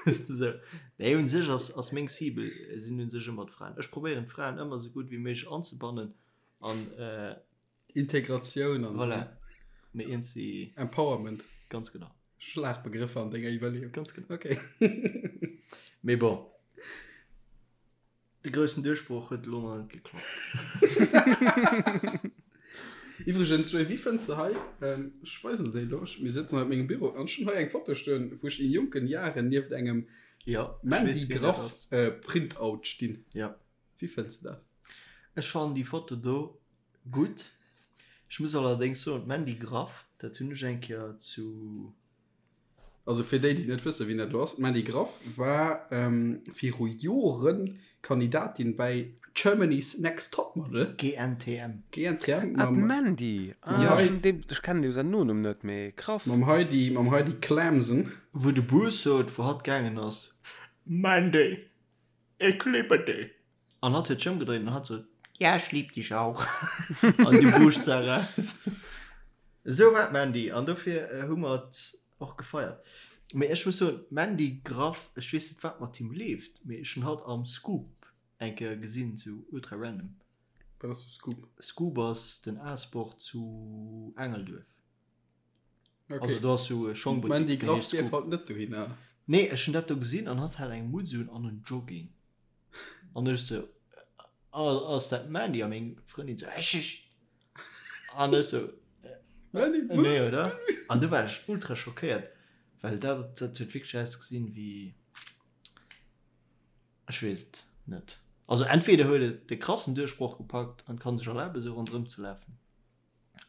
Sou. Nee, un sech ass, ass meng Cible sinn un sech ëmmer d'Fraen. Ech probéieren d'Fraen ëmmer sou gutt wéi méiglech anzebannen an äh, Integratioun an voilà. Mee iergendwéi. Empowerment. Ganz genau. Schlagbegrëffer an denger Iwwerleeung. Ganz genau. Okay. Mee bon. De groussen Duerchbroch huet elo nach net geklappt. Iwwregens, Joé, wéi fënns de hei, ech weisen der déi elo, mir sëtzen hei op mengem Büro an ech hunn hei eng Foto stoen, wou ech in jonken Jaren nieft engem Ja, ech Mandy weess, wien dat Graff ass. Printout stinn. Ja. Wéi fënns de dat? Ech fannen déi Foto do Gutt. Ech muss allerdéngs soen, d'Mandy Graff, dat hunn ech eng Kéier zu. Also fir déi, déi net wëssen, wien dat elo ass, D'Mandy Graff war viru Jore Kandidatin bäi Germany's Next Topmodel. GNTM. GNTM. Ah, d'Mandy! Ah, ech kennen deem säin Nonumm net, mee krass. Mam Heidi, mam Heidi Klamsen. Wou de Bruce sot, wou hatt gaangen ass, Mandy, ich liebe dich. An hatt huet sech ëmgedréint an hatt sot, Ja, ich lieb dich auch. An du Buuscht se eraus. Esou war d'Mandy an dofir hu mer et och gefeiert. Mee ech muss soen, d'Mandy Graff, ech weess net wat mat him leeft, mee ech hunn hatt am Scoop eng Kéier gesinn, sou ultra random. Wat ass de Scoop? Scoop ass den A-Sport zu Engelduerf. Okay. Also do ass sou e Schongbuttik, D'Mandy deen Graff heescht dierf Scoop. halt net dohinner. Nee, ech hunn dat do gesinn an hatt hat eng Mutz un an en Jogging. An ech sou, ass dat d'Mandy? A meng Frëndin sou, ech, ech. An ech sou, Mandy, nee, oder? An du war ech ultra schockéiert, well dat, dat huet wierklech ausgesinn wéi, ech weess et net. Also entweder huet et de krassen Duerchbroch gepackt an kann sech erlaben, sou ronderëm ze lafen.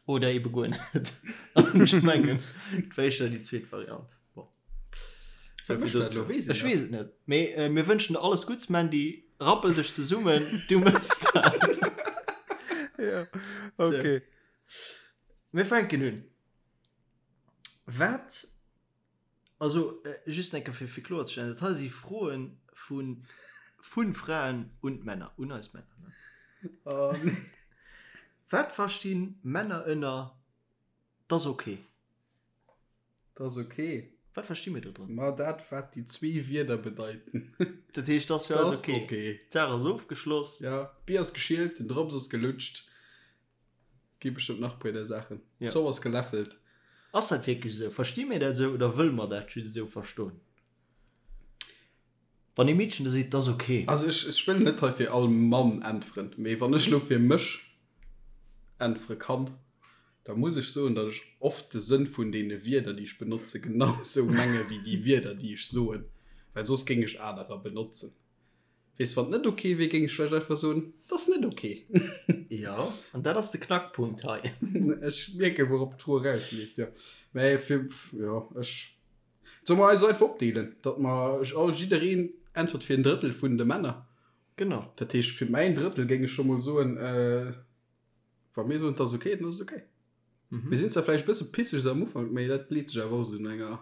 Oder ebe guer net. An ech mengen, et war éischter déi zweet Variant. Bon. Wat mécht dat elo? Weess een Ech dat? weess et net. Mee äh, mir wënschen der alles Gutts, Mandy. Rappel dech zesummen, du méchs dat. Ja, okay. Mir fänken un. Wat Also, just eng Kéier fir, fir kloerzestellen, dat hei si Froe vu, vu Fraen un d'Männer, un eis Männer, ne? Oh, nee. Wat versti Männer ënner 't ass ok? 't ass ok. Wat versti mir do drënner? Ma dat, wat déi zwee Wierder bedeiten. Dat heescht, 't ass fir eis ok. ok. D'Saach ass ofgeschloss. Ja, d'Bier ass geschielt, den Drops ass gelutscht. Gi bestëmmt nach puer där Saachen. Ja. D'Zopp ass geläffelt. Ass dat wierklech esou? Versti mir dat esou oder wëlle mer dat just esou verstoen? Wann ee Meedchen da seet, 't ass ok. Also ech, ech wëll net hei fir all Mann äntweren, mee wann ech elo fir mech äntwere kann, da muss ech soen, datt ech oft de Sënn vun deene Wierder, déi ech benotze, genau esou menge wéi déi Wierder, déi ech soen, well soss géing ech anerer benotzen. Weess, wann et net ok wier, géing ech vläicht einfach soen, 't ass net ok. Jo, an dat ass de Knackpunkt hei. Ech mierken, wourop d'Fro erausleeft, jo. Mä fir, jo, ech, solle mer eis einfach opdeelen, datt mer all, jiddereen äntwert fir en Drëttel vun de Männer? Genau. Dat heescht, fir mäin Drëttel géing ech scho mol soen, Wa mir soen, 't ass ok, dann ass et ok. Mir sinn zwar vläicht e bësse pisseg esou am Ufank, mee dat leet sech awer och esou no enger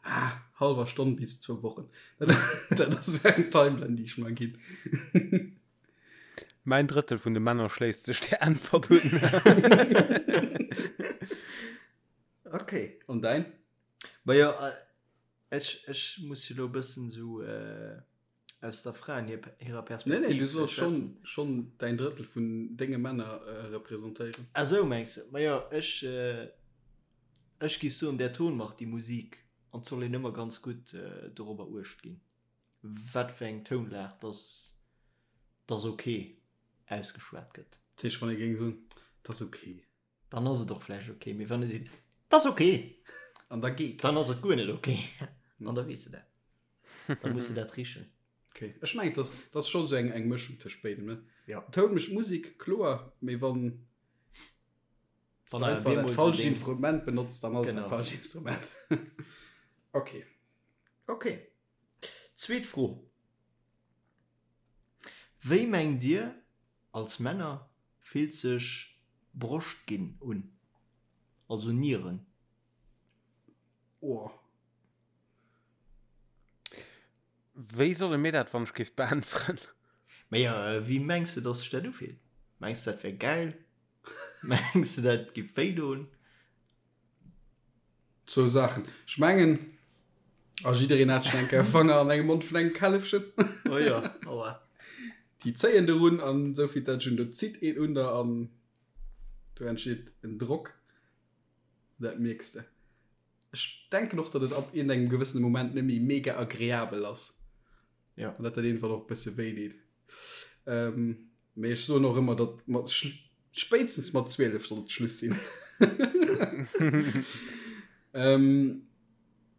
ah, hallwer Stonn bis zwou Wochen. Dat, dat ass eng Timeline, déi ech mer ginn. Mäin Drëttel vun de Männer schléisst sech där Äntwert un. Ok. An däin? Majo, ech, ech muss jo elo e bëssen esou aus der Fraen hirer Perspektiv. Nee, nee, du solls schonn, schonn däin Drëttel vun denge Männer representéieren. Ah sou mengs de. Majo, ech, ech giff soen, der Ton macht die Musik an 't soll een ëmmer ganz gutt dorobber uecht ginn, wat fir eng Tounlag dass dass ok ausgeschwat gëtt. Dat heescht, wann ee géing soen, 't ass ok. Dann ass et och vläicht ok, mee wann ee seet, 't ass ok, An da geet. dann ass et guer net ok an da weess de dat. Da muss de dat richen. Okay. Ech mengen, dat ass scho sou eng, eng Mëschung tëscht béidem, ne? Ja. Toun mécht Musek, kloer, mee wann Wann du awer einfach dat bemol falscht so deng- Instrument benotzt, dann ass et Genau. dat falscht Instrument. Okay. Okay. Zweet Fro. Wéi mengt Dir, als Männer, fillt sech Broscht ginn un? Also Nieren? Oh. Wéi solle mir dat wann ech géif beäntweren? Majo, wéi mengs de dass sech dat ufillt? Mengs de dat wär gäil? Mengs de dat giff wéi doen? Zwou Saachen. Ech mengen, a jiddereen hat schon eng Kéier Fanger an engem Mond vun engem Källefchen. Oh jo, aua. Déi zéien derun an esou vill dat ech un, do zitt een un der an do entsteet en Drock. Dat mierks de. Ech denken och, datt et ab iergendengem gewëssene Moment net méi mega agreabel ass. Ja. An datt dat iergendwann och e bësse wéi deet. Ähm, mee ech soen och ëmmer, datt mat spéitstens mat 12 sollt et Schluss sinn. ähm,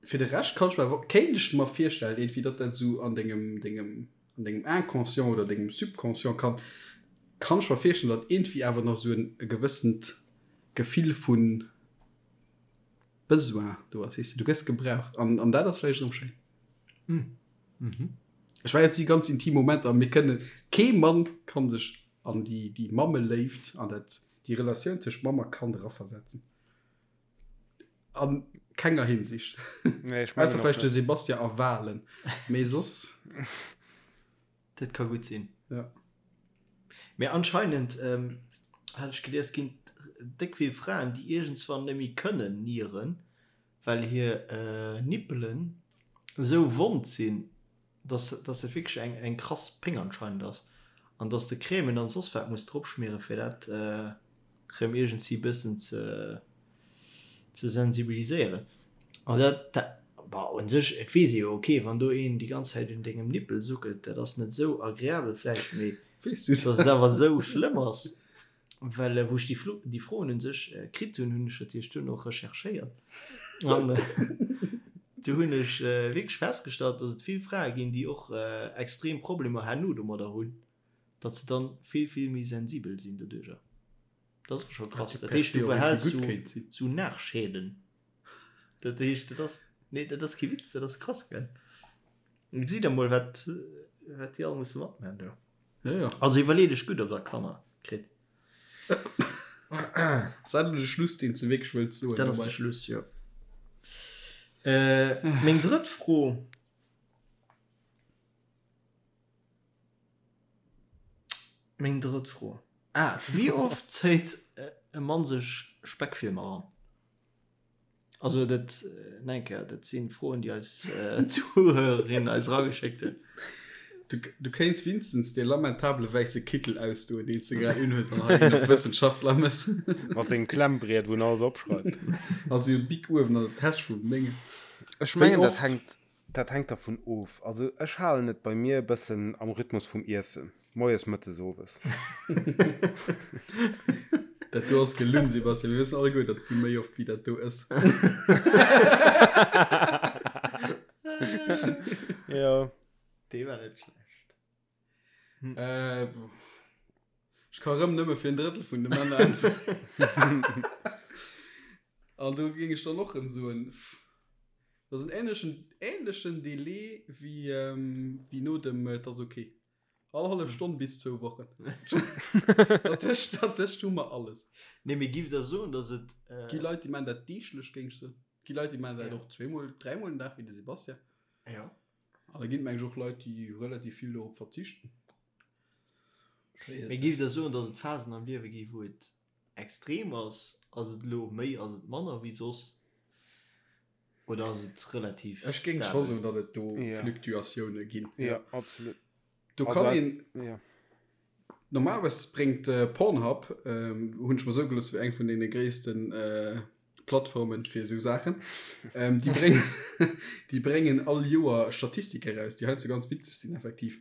fir de Rescht kann ech mer, kéint ech mer virstellen, iergendwéi, datt dat esou an dengem, dengem, an dengem Inconscient oder dengem Subconscient kann, kann ech mer virstellen, datt iergendwéi awer nach esou en e gewëssent Gefill vun Besoin do ass, weess de, du gëss gebraucht an, an dat ass vläicht erëm schéin. Mhm. Ech war jetzt déi ganz intim Momenter, mir kënnen, kee Mann kann sech an déi, déi Mammeléift, an dat, déi Relatioun tëscht Mamm a Kand eraversetzen. An kenger Hinsicht. Nee, ech mengen Ausser och vläicht de net. Sebastian a Walen, mee soss. Dat ka gutt sinn. Ja. Mee anscheinend, hat ech gelies, ginn et déck vill Fraen, déi iergendswann net méi kënnen nieren, well hir Nippelen esou wond sinn, dass dass dat wierklech eng eng krass Péng anscheinend ass an dass de Crèmen an soss wat muss drop schmieren, fir dat rëm iergendsi bëssen ze ze sensibiliséieren. An dat, dat, bah, un sech, et weess ee jo, ok, wann do een déi ganz Zäit un dengem Nippel suckelt, dat ass net esou agreabel vläicht, mee Weess du dass et awer esou schlëmm ass, well wou ech déi Flo, déi Froen un sech kritt hunn, hunn ech natierlech duerno recherchéiert an do hunn ech wierklech festgestallt, dass et vill Frae ginn, déi och extrem Problemer herno domadder hunn, datt se dann vill, vill méi sensibel sinn doduercher. Dat ass scho krass. Dat heescht, du behälls sou Nachschäden. Dat heescht, dat ass, nee, dat ass kee Witz, dat ass krass, gell? Gesitt der mol, wat, wat déi all musse matmachen do. Ja, ja. Also iwwerleet iech gutt, ob der Kanner kritt. Ass dat elo de Schluss, deen s de wierklech wëlls soen? Dat ass de Schluss, jo. Meng drëtt Fro. Meng drëtt Fro. Ah, wéi oft zéit e Mann sech Speckfilmer eran? Also dat, nach eng Kéier, dat si Froen, déi eis Zuhörerinnen eis erageschéckt hunn. Du, du kéints winstens dee lamentabele wäisse Kittel ausdoen, deen s de grad unhues an hei een op Wëssenschaftler mëss. Mat sengem Klemmbriet, wou en alles opschreift. Also e Bic uewen an der Täsch vum Déngen. Ech Wéi mengen, dat oft? hänkt. Dat hänkt dervun of. Also ech halen et bei mir e bëssen am Rhythmus vum Iessen, moies, mëttes, owes. Dat do ass gelunn, Sebastian. Mir wëssen alleguer, datt s du méi oft wéi dat do ëss. Jo. Dee war net schlecht. Äh, ech ka rëm nëmme fir en Drëttel vun de Männer äntweren. An do géing ech dann och rëm soen, pff, dat ass en ähnlechen, ähnlechen Delai wéi, ähm, wéi no dem Et ass ok. All hallef Stonn bis zwou Wochen. Dertëscht, dertëscht hu mer alles. Nee, mee giff der soen, dass et, äh. Gi Leit, déi maachen dat deeglech, géing ech soen. Gi Leit, déi maachen dat och zweemol, dräimol den Dag, wéi de Sebastian. Ja. An da ginn et meng ech och Leit, déi relativ vill dorop verzichten. Mee giff der soen, dass et Phasen am Liewe gi wou et extrem ass? Ass et elo méi, ass et manner wéi soss? Oder ass et relativ Ech géing scho stabel? soen, datt et do Ja. Fluktuatioune ginn. Ja, absolut. Do Also, kann een. ja. Normalerweis bréngt Pornhub, hunn ech mer soe gelooss, wéi eng vun deene gréissten Plattformen fir esou Saachen, déi bréngen, déi bréngen all Joer Statistike eraus, déi heiansdo ganz witzeg sinn effektiv.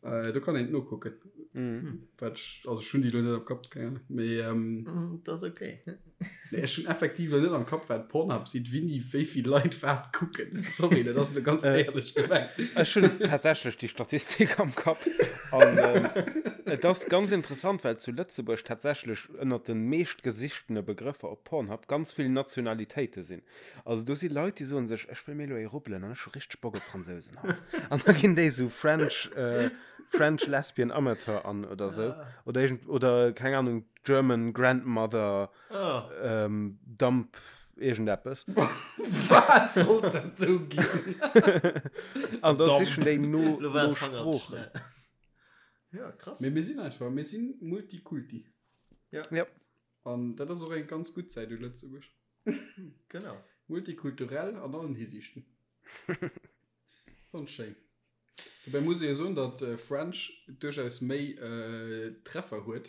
Do kann een et nokucken. Wat ech, also ech hunn déi elo net am Kapp, keng Ahnung, mee. Dat ass ok. Nee, ech hunn effektiv elo net am Kapp, wat Pornhub seet, wéini wéi vill Leit wat kucken. Sorry, dat ass elo ganz éierlech gemengt. Ech hunn tatsächlech déi Statistik am Kapp. An et ass ganz interessant, well zu Lëtzebuerg tatsächlech ënnert de meeschtgesichtene Begrëffer op Pornhub ganz vill Nationalitéite sinn. Also do si Leit, déi soen sech, ech wëll mir elo ee rubbelen an ech hu richteg Bock op Fransousen haut. An da ginn déi esou French, French Lesbian Amateur an oder esou. Oder iergend, oder keng Ahnung, German Grandmother ähm, Dump iergendeppes. Wat sollt dat do ginn? An da sichen déi no, Lo war no de Fanger ze Sproochen. schnell. Ja, krass. Mee mir sinn einfach, mir sinn Multikulti. Ja. Ja. An dat ass och eng ganz gutt Säit u Lëtzebuerg. Genau. Multikulturell an allen Hisiichten. Ganz schéin. Dobäi muss ee jo soen, datt French duerchaus méi Treffer huet,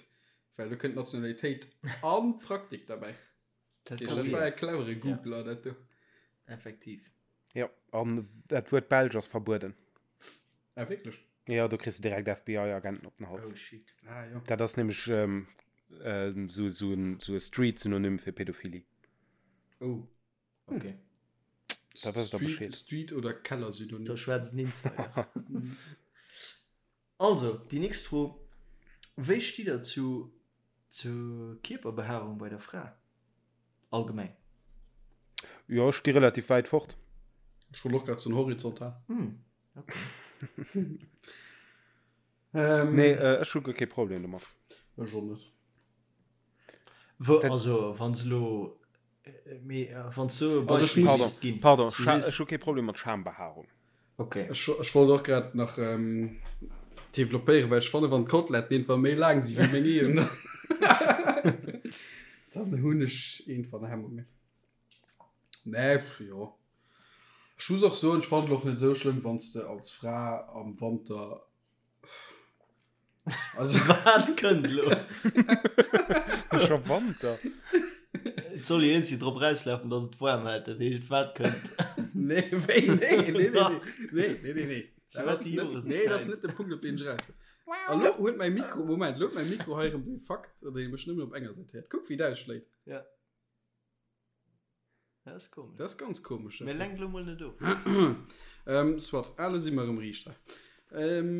well do kënnt Nationalitéit an Praktik derbäi. Dat Dat war e clevere Googler, dat do. Effektiv. Jo, an dat Wuert Belsch ass verbueden. Ah, wierklech? Jo, do kriss de direkt FBI-Agenten op den Hals. Oh shit. Ah, jo. Dat ass nämlech esou e Street-Synonym fir Pädophilie. Oh. Okay. Da wësst der Bescheed. Street oder Keller-Synonym. Do schwätzt den Insider. Also, déi nächst Fro, Wéi stitt der zu zur Kierperbehaarung bei der Fra allgemeng? Jo, ech sti relativ wäit fort. Ech wollt och grad soen horizontal. Hm, okay. Ähm, Nee, ech hu guer kee Problem domat. Ech och net. Wou, also, wann se elo, mee wann s du e Also ech Beispill muss- misst ginn. Pardon, Du Scha sees- ech hu kee Problem mat Schambehaarung. Okay. Ech, ech wollt och grad nach ähm, developpéieren, well ech fanne wann d'Koteletten irgendwann méi laang si wéi meng eegen, dann hunn ech irgendwann Hemmungen. Nee, pff, jo. Ech muss och soen, ech fannen et och net esou schlëmm, wann s de als Fra am Wanter Also Wat kënnt elo? Scho Wanter? Et soll jo iergendwéi drop erauslafen, dass et waarm hätt. Dat heescht, wat kënnt? Nee, wéi? Nee, nee, nee, nee, nee, nee, nee, nee. Dat Firwat ass déi net, nee, dat ass Joreszäit? net de Punkt, op deen ech eraus wëll. A lo huet mäi Mikro, Moment, lo huet mäi Mikro hei erëm de Fakt, datt ee mech nëmmen op enger Säit héiert. Kuck, wéi dat ausschléit. Ja. Dat ass komesch. Dat ass ganz komesch. Mee lenk lo mol net of. ähm, soit, ah, lo si mer erëm riicht hei. Ähm,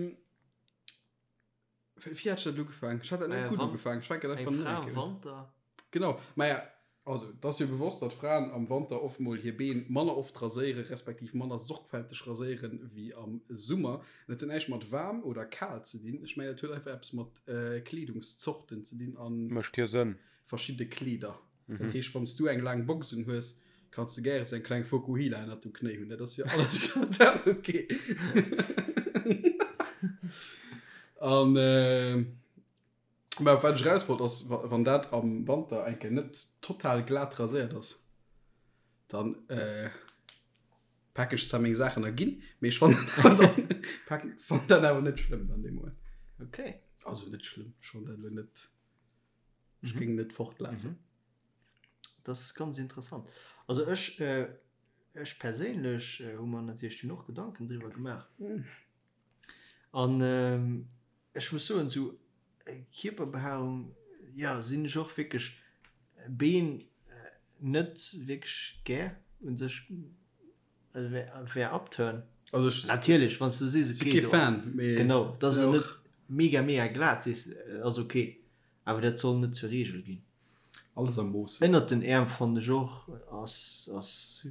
wéi hat ech dat ugefaangen? Ech hat dat net Äh, gutt wann- ugefaangen. Ech fänken Eng einfach Fra net am un. Wanter. Genau, maja, also, et ass jo bewosst, datt Fraen am Wanter oft mol hir Been manner oft raséieren, respektiv manner sorgfälteg raséieren wéi am Summer. Dat huet näischt mat waarm oder kal ze dinn. Ech mengen, dat huet einfach eppes mat äh, Kleedungszorten ze dinn an Mécht jo Sënn. verschidde Kleeder. Dat heescht, wann s du eng laang Box un hues, kanns de gäre sou eng kleng Fokuhila ënnert dem Knéi hunn. Dat ass jo alles total ok. An mä op wat ech eraus wollt ass, wann dat am Wanter eng Kéier net total glat raséiert ass, dann paken ech zwar meng Saachen a ginn, mee ech fannen dann dat awer net schlëmm dann dee Moment. Ok. Also net schlëmm, ech fannen dat elo net. Ech géing net fortlafen. Mhm. Das ist ganz interessant. Also ech äh, Ech perséinlech hu mer natierlech dunn och Gedanken driwwer gemaach. An ech muss soen, esou Kierperbehaarung, jo, sinn ech och wierklech Been net wierklech gär u sech, also wär upturn. Also ech Natierlech, wann s du sees, si okay, kee do, Fan, mee genau, dass et och. net mega mega glat sees, ass ok, awer dat soll net zur Reegel ginn. Alles am Mooss. Ënnert den Äerm fannen ech och ass ass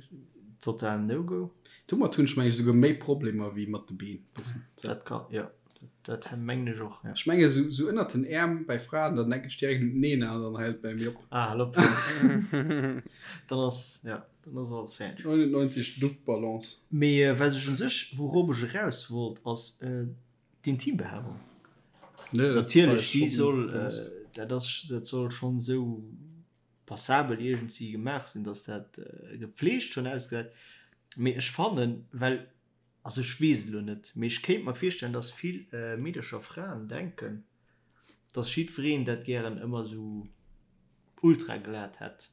total no go. Domat hunn ech meng ech esouguer méi Problemer wéi mat de Been. Dat kann jo dat mengen ech och jo. Ech menge sou sou ënnert den Äerm bei Fraen dann denken ech direkt un d'Nena an dann hält et bei mir op. Ah hal op dann ass jo dann ass alles fäerdeg. 99 Duftballons. Mee wat ech un sech wourop ech eraus wollt ass D'Intimbehaarung, natierlech, déi soll, dat ass, dat soll schonn esou passabel iergendwéi gemaach sinn, datt dat gepflegt schonn ausgesäit. Mee ech fannen, well, also ech weess et elo net, mee ech kéint mer virstellen, datt vill Meedercher, Fraen denken, datt jiddwereen dat gären ëmmer esou ultra glat hätt.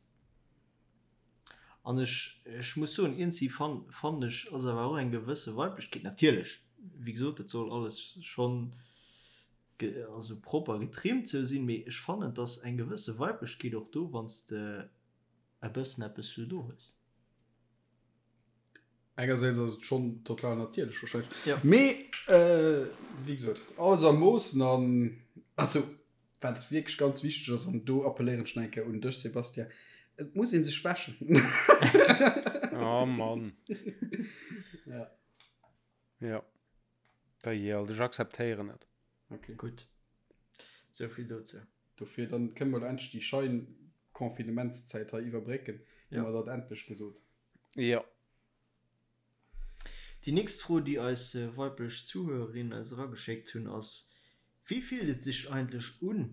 An ech, ech muss soen, iergendwéi fan, fannen ech, ass awer och eng gewësse Weiblechkeet, natierlech, wéi gesot, et soll alles schonn ge, also propper getrimmt sou sinn, mee ech fannen, et ass eng gewësse Weiblechkeet och do, wann s de e bëssen eppes sou do hues. Engersäits ass et schonn total natierlech wahrscheinlech, Ja. mee wéi gesot, alles a Moossen an, also Wat wierklech ganz wichteg ass, an do appelléieren ech nach eng Kéier un dech, Sébastien, et muss ee sech wäschen. Oh Mann. Ja. Ja. Da jee, ech akzeptéieren et. Okay. Gutt. Sou vill dozou. Dofir, dann kënne mer elo endlech déi schein Confinementszäit hei iwwerbrécken. Hu mer dat endlech gesot. Jo. Déi nächst Fro, déi eis weiblech Zuhörerinnen eis erageschéckt hunn, ass, Wéi fillt et sech eigentlech un,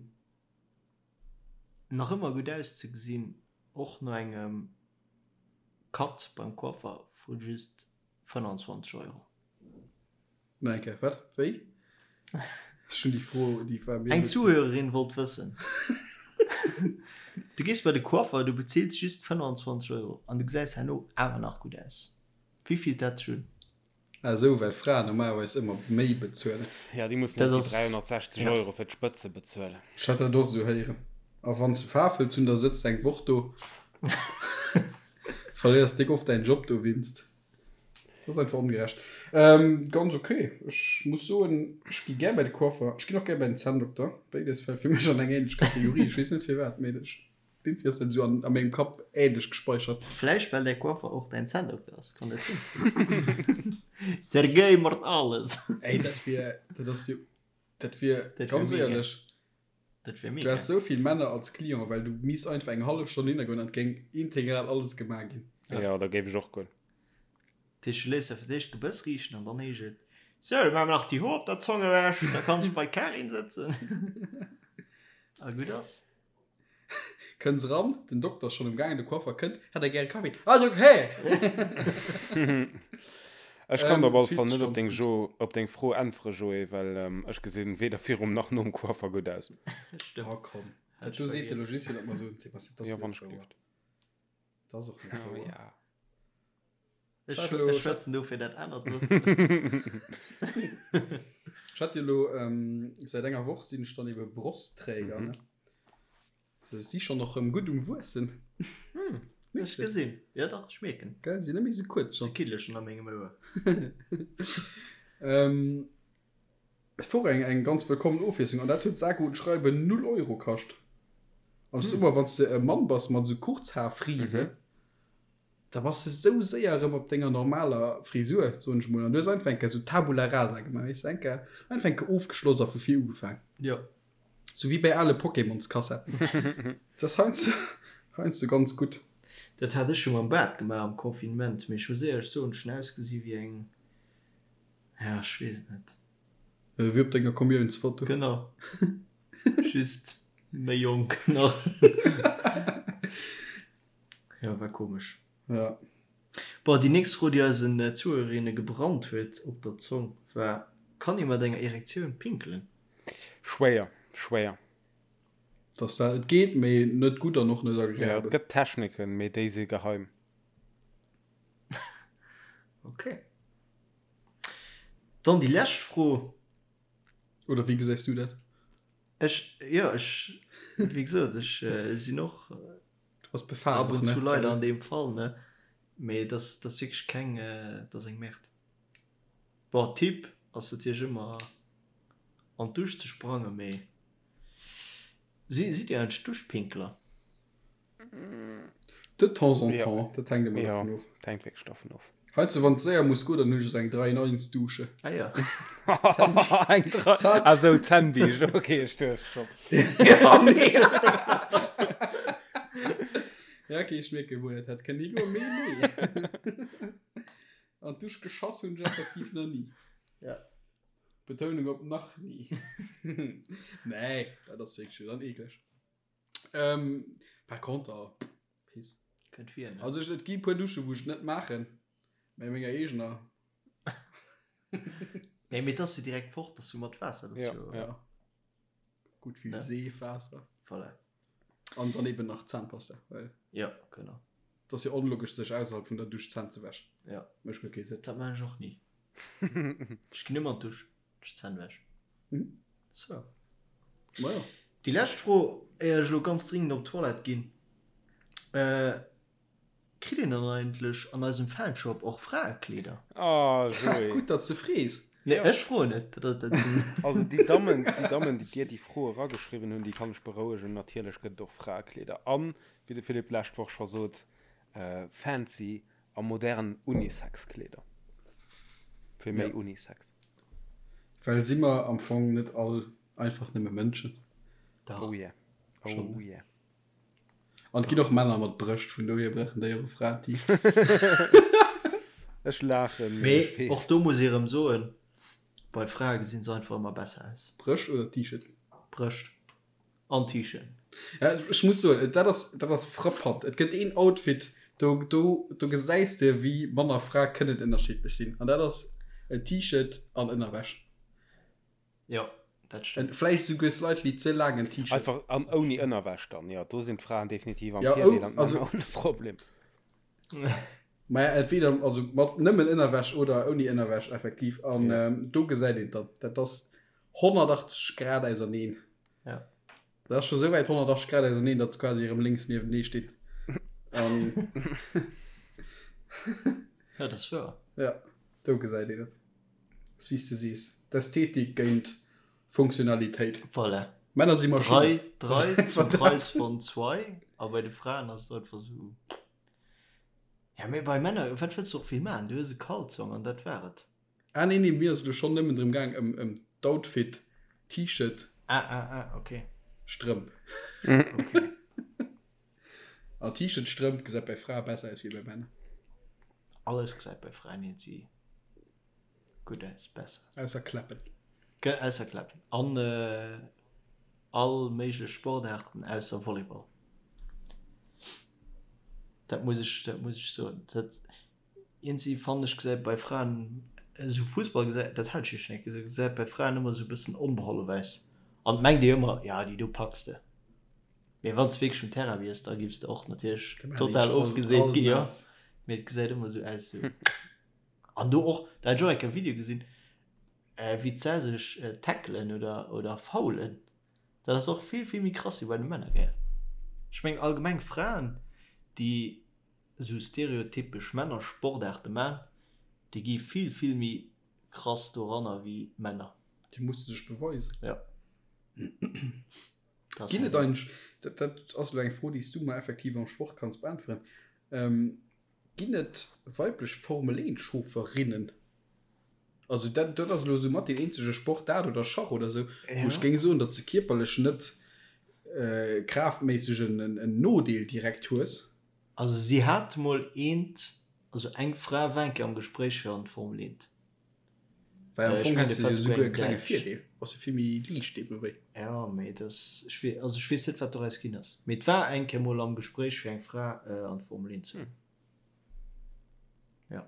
nach ëmmer gutt auszegesinn, och no engem Cut beim Coiffer vu just 25 Euro? Nach eng Kéier, wat? Wéi? Ech hunn déi Fro, déi war mir Eng elo ze. Zuhörerin wollt wëssen, Du gees bei de Coiffer, du bezils just 25 Euro an du gesäis herno awer nach gutt aus. Wéi fillt dat sech un? Ah esou, well Fraen normalerweis ëmmer méi bezuelen. Ja, déi mussen Dat och déi ass, 360 ja. Euro fir d'Spëtze bezuelen. Ech hat dat och esou héieren. A wann s de Faarf wëlls hunn, da sëtz de eng Woch do. Verléiers déck oft däin Job dowéinst. Dat ass einfach ongerecht. Ganz ok. Ech muss soen, ech gi gär bei de Coiffer. Ech ginn och gär bei den Zänndokter. Béides fält fir mech an eng ähnlech Kategorie. Ech weess net firwat, mee ech Irgendwie ass dat esou an, a mengem Kapp ähnlech gespeichert. Vläicht well däi Coiffer och däin Zänndokter ass, kann dat sinn? Sergei Mortales! Ey, dat wier, dat ass jo, dat wier, Dat wier ganz mega. éierlech, Dat wier du mega. häss esou vill Männer als Client, well du misst einfach eng hallef Stonn hinnergoen an et géing integral alles gemaach ginn. Ja, da géif ech och goen. Dat heescht, du léiss der fir d'éischt d'Gebëss riichten an dann heescht et, Sou, da maache mer nach déi Hoer op der Zong ewech, da kanns du bei d'Karin sëtzen. A gutt ass. Kënns eran, den Dokter ass schonn um Gaangen, de Coiffer kënnt, Hätt der gäre Kaffi? Ah, jo, hä! Ech kann der op alle Fillt Fall sech net op ganz deng gutt. Jo, op deng Fro äntwere, Joé, well ech gesinn weder virum nach nom Coiffer gutt aus. Stëmmt. Oh komm, Hat dat ech do seet de vergiess. lo just fir dat mer soen, Sébastien, dat ass Jo, net wann ech wouer. gelift. Dat ass och net Oh wouer. ja. Ech Ech hat elo, ech ech hat, schwätzen dofir dat anert do. ech hat jo elo, säit enger Woch sinn ech dann ebe Brostträger, Mhm. ne? Se si schonn och rëm gutt um Wuessen. Hm, Mierks ech de? gesinn. Jo dach, ech mierken. Gell, si net méi sou kuerz Se schonn. kiddele schonn a mengem Ouer. Ähm, et wor eng, eng ganz wëllkommen Ofwiesslung an dat huet sage und schreibe 0 Euro kascht. An ech soe mol, wann s de e Mann bass mat esou Kurzhaarfrise, Mhm. da bass de sou séier erëm op denger normaler Frisur, soen ech mol. An du hues einfach eng Kéier sou Tabula rasa gemaach, weess de, eng Kéier, einfach eng Kéier ofgeschloss a vu vir ugefaang. Jo. Sou wéi bei ale Pokémonskassetten. Dat ass heiansdo, heiansdo ganz gutt. Dat hat ech jo mam Baart gemaach am Confinement, mee ech muss éierlech soen, ech hunn ausgesi wéi eng, ja, ech weess et net. Wéi op denger Kommiounsfoto. Genau. Just méi jonk nach. Jo, war komesch. Ja. Bon, déi nächst Fro, déi eisen Zuhörerinne gebrannt huet op der Zong, war, Kann ee mat enger Erektioun pinkelen? Schwéier, schwéier. Dass dat, et geet, mee net gutt an och net Ja, et agreabel. gëtt Techniken, mee déi si geheim. Okay. Dann déi lescht Fro. Oder wéi gesäis du dat? Ech, jo, ech, wéi gesot, ech sinn och Du bass befal ab und zu leider an deem Fall, ne? Mee et ass, et ass wierklech keng, et ass eng Merde. Bon, Tipp ass natierlech ëmmer an d'Dusch ze sprangen, mee si, sidd Dir eigentlech Duschpinkler? De temps en temps, dat hänkt ëmmer dovun of. Dat hänkt wierklech dovun of. Heizou, wann et séier muss goen, dann hunn ech esou eng 3 in 1 Dusche. Ah ja. Eng 3, ah sou, Zännbiischt, ok, ech duecht scho. Ja, nee. Ja, ok, ech mierken, wou dat hätt kënnen higoen, mee nee. An d'Dusch geschass hunn ech effektiv nach ni. Ja. Betounung op nach ni. Nee, dat ass wierklech jo dann eekleg. Ähm, par contre, Piss. Kënnt vir, ne? Also ech, et gi puer Duschen, wou ech et net maachen, mä menger eegener. Nee, mee et ass jo direkt fort, ass jo mat Waasser, dat ass Ja, jo. ja. Gutt vill Ne? Seef, Waasser. Voilà. An dann eben nach Zahnpasta, well Ja, genau. et ass jo onlogesch, sech ausserhalb vun der Dusch d'Zänn ze wäschen. Ja. Mécht guer kee Sënn. Dat maan ech och ni. Ech ginn ëmmer an d'Dusch. Ech d'Zänn wäschen. Mhm. So. Majo. Déi lescht Fro, éier ech elo ganz dringend op d'Toilette ginn. Äh, kritt een dann eigentlech an eisem Fanshop och Fraekleeder? Oh, Joé. Gutt, datt s de frees. Nee, ech froen net. Dat, dat sinn. Also déi Dammen, déi Dammen, déi dir déi Fro erageschriwwen hunn, déi kann ech berouegen, natierlech gëtt et och Fraekleeder. An, wéi de Philippe d'lescht Woch scho sot, fancy A modern Unisex-Kleeder. Fir méi Unisex. Well si mer am Fong net all einfach nëmme Mënschen? Dach. Oh yeah. Oh yeah. An et ginn och Männer mat Brëscht, vun dohier brauchen déi och e Fraen-T-Shirt. Ech laachen, mee ech Mee och weess. do muss ee rëm soen, bei Frae gesinn se einfach ëmmer besser aus. Brëscht oder T-Shirt? Brëscht. An T-Shirt. Ja, ech muss soen, dat ass, dat ass frappant. Et gëtt een Outfit, do, do, do gesäis de, wéi Mann a Fra kënnen ënnerschiddlech sinn. An dat ass en T-Shirt an Ënnerwäsch. Jo, dat stëmmt. En vläicht esouguer slightly ze laangen T-Shirt. Einfach an ouni Ënnerwäsch dann, jo. Do sinn d'Fraen definitiv am Ja, Virdeel ou, an d'Männer also. hunn e Problem. Maja, entweder also mat nëmmen Ënnerwäsch oder ouni Ënnerwäsch, effektiv. An Ja. do gesäit een et dann. Dat ass 180 Grad auserneen. Ja. Dat ass scho sou wäit 180 Grad auserneen, datt se quasi erëm lénks niewenee stinn. An Ja, dat ass wouer. ja, do gesäit een et. Ass wéi s de sees, d'Ästhetik géint Funktionalitéit. Voilà. Männer si Maschinnen. Drei, drei zum Preis von zwei. A bei de Fraen ass et einfach sou. Ja, mee bei Männer, wat wëlls du och vill maachen? Du hues e Kalzong an dat war et. Ah nee, nee, mir ass elo schonn nëmmen drëm gaang ëm ëm d'Outfit, T-Shirt. Ah, ah, ah, ok. Strëmp. Ok. An T-Shirt, Strëmp gesäit bei Frae besser aus wéi bei Männer. Alles gesäit bei Fraen iergendwéi gutt aus, besser. Ausser Kläppen. Ge, ausser Kläppen. An all méiglech Sportaarten ausser Volleyball. Dat muss ech, dat muss ech soen. Dat. Iergendwéi fannen ech gesäit bei Fraen esou Fussball gesäit, dat hat ech jo schon eng Kéier gesot, gesäit bei Fraen ëmmer esou e bëssen onbeholf aus an et mengt ee ëmmer, jo déi do packs de. Mee wann s de wierklech um Terrain wiers, da giffs de och natierlech total ofgeseet ginn, jo. Mee et gesäit ëmmer esou aus esou. An do och, da hat ech och eng Kéier e Video gesinn, wéi d'Sä sech tackelen oder oder foulen, dat ass och vill vill méi krass wéi bei de Männer, gell. Ech mengen allgemeng Fraen déi esou stereotypesch Männersportaarte man, déi gi vill vill méi krass doranner wéi Männer. Déi musse sech beweisen. Jo. Ginn et eigentlech, dat dat ass elo eng Fro, déi s du mer effektiv am Sport kanns beäntweren, ginn et weiblech Formel 1 Chauffeurinnen? Also dat dat ass elo esou mat deen eenzege Sport, dat oder Schach oder esou, wou ech géing soen, datt s de kierperlech net kraaftméisseg en en Nodeel direkt hues. Also si hat mol eent, also eng Fra war eng Kéier am Gespréich fir an d'Formel 1. Well am Ech Fong mengen, häss dat de war jo souguer souguer e eng klenge Däitsch. Virdeel, bass jo vill méi liicht deemno wéi. Jo, mee et ass, ech wee, also ech weess net wat doraus ginn ass, mee et war eng Kéier mol am Gespréich fir eng Fra an d'Formel 1 ze huelen. Jo.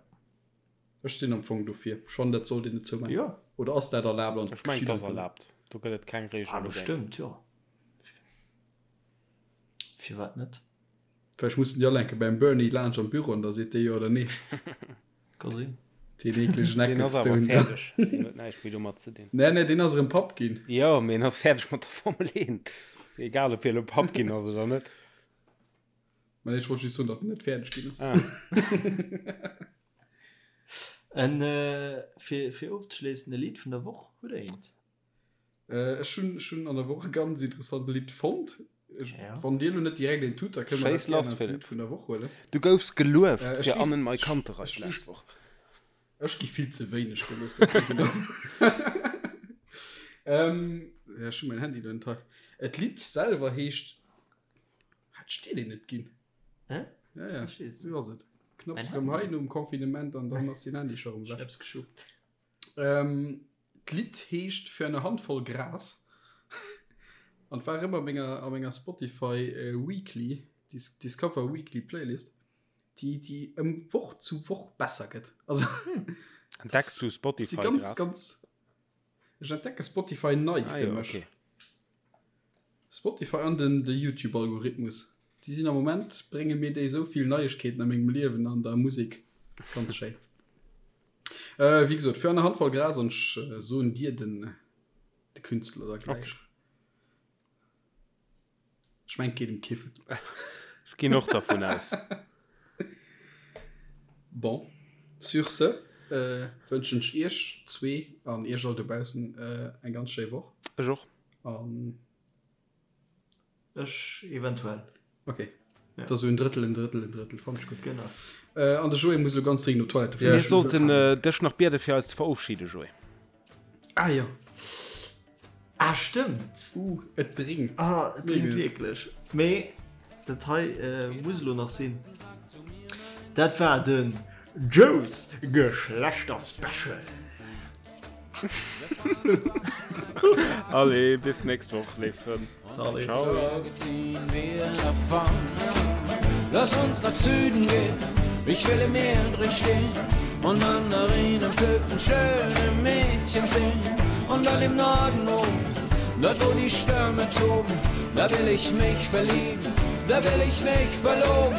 Ech sinn am Fong dofir, ech fannen dat sollt een net zoumaachen. Jo. Oder ass dat erlaabt an Ech mengen et ass geschitt einfach net? erlaabt, do gëtt et keng Ah, Reegel dogéint. bestëmmt, jo. Firwat net? Vläicht mussen déi all enke beim Bernie laanscht am Büro an da seet dee jo oder nee. Ka sinn. Deen eeklegen Deen ass awer Ecclestone. fäerdeg. Deen huet näischt méi domat ze dinn. Nee, nee, deen ass erëm Papp ginn. Jo, mee en ass fäerdeg mat der Formel 1. Ass egal, ob hie elo Papp ginn ass oder net. Mä nee, ech wollt just soen, datt en net fäerdeg ginn ass. Ah. En, fir, fir ofzeschléissen, e Lidd vun der Woch, hutt Der eent? Ech hunn, ech hunn an der Woch e ganz interessant Lidd fonnt. Ech, Ja. Wann Dir elo net direkt eent hutt, da kënne mer Schéiss dat gären lass, als Philipp. Lidd vun der Woch huelen. Du goufs gelueft Äh, ech fir weess, Annen Mai ech, Kantereit ech d'lescht weess, Woch. ech gi vill ze wéineg gelueft, dat weess ech. Ähm, ja, ech hunn mäin Handy elo net hei. Et Lidd selwer heescht, hat ech dir deen net ginn? Hä? Ja, ja, Ech weess sou ass et. Knapps Mäin erëm Handy. hei nom Confinement an dann ass den Handy scho erëm Ech weg. hab's geschuppt. Ähm, D'Lidd heescht Für eine Handvoll Gras an war ëmmer a menger, a menger Spotify Weekly, Discover Weekly Playlist, déi, déi ëm Woch zu Woch besser gëtt. Also, Entdecks du Spotify ganz, grad? ganz, ech entdecke Spotify nei Ah, fir jo, mech. okay. Spotify an den de YouTube Algorithmus, déi sinn am Moment, brénge mir déi esou vill Neiegkeeten a mengem Liewen an der Musek, ass ganz schéin. Wéi gesot, für eine Handvoll Gras an ech soen dir den de Künstler da gläich. Okay. Ech mengen, et geet em Kiffen. Ech ginn och dervun aus. Bon, sur ce wënschen ech iech zwee an iech all dobaussen eng ganz schéi Woch. Ech och. An Ech eventuell. Ok. Ja. Dat ass esou en Drëttel, en Drëttel, en Drëttel. Fand ech gutt. Genau. Äh, an de Joé muss elo ganz dringend op d'Toilette. Mir sollten äh, dech nach biede fir eis ze verofschieden, Joé. Ah ja. Ah, stëmmt. Uh, et dréngt. Ah, et dréngt Mega. wierklech. Mee dat hei äh, muss elo nach sinn. Dat war den Joes Geschlechterspecial. Allez, bis nächst Woch, léif Frënn. Salut. Ciao. Lass uns nach Süden gehen, ich will im Meer drin stehen und Mandarinen pflücken, schöne Mädchen sehen. Und dann im Norden oben, dort wo die Stürme toben, da will ich mich verlieben, da will ich mich verloben.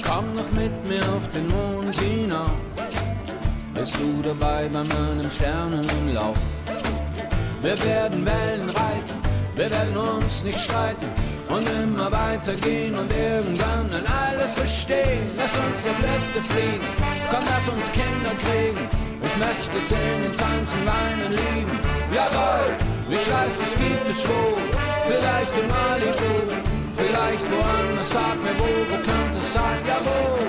Komm noch mit mir auf den Mond hinauf. Bist du dabei bei meinem Sternenlauf? Wir werden Wellen reiten, wir werden uns nicht streiten und immer weitergehen und irgendwann dann alles verstehen. Lass uns durch Lüfte fliegen, komm, lass uns Kinder kriegen. Ich möchte singen, tanzen, weinen, lieben. Jawohl, ich weiß, es gibt es wohl. Vielleicht in Malibu, vielleicht woanders. Sag mir wo, wo könnte es sein? Jawohl.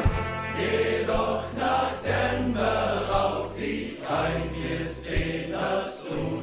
Geh doch nach Denver, rauch dich ein, wirst sehen, dass du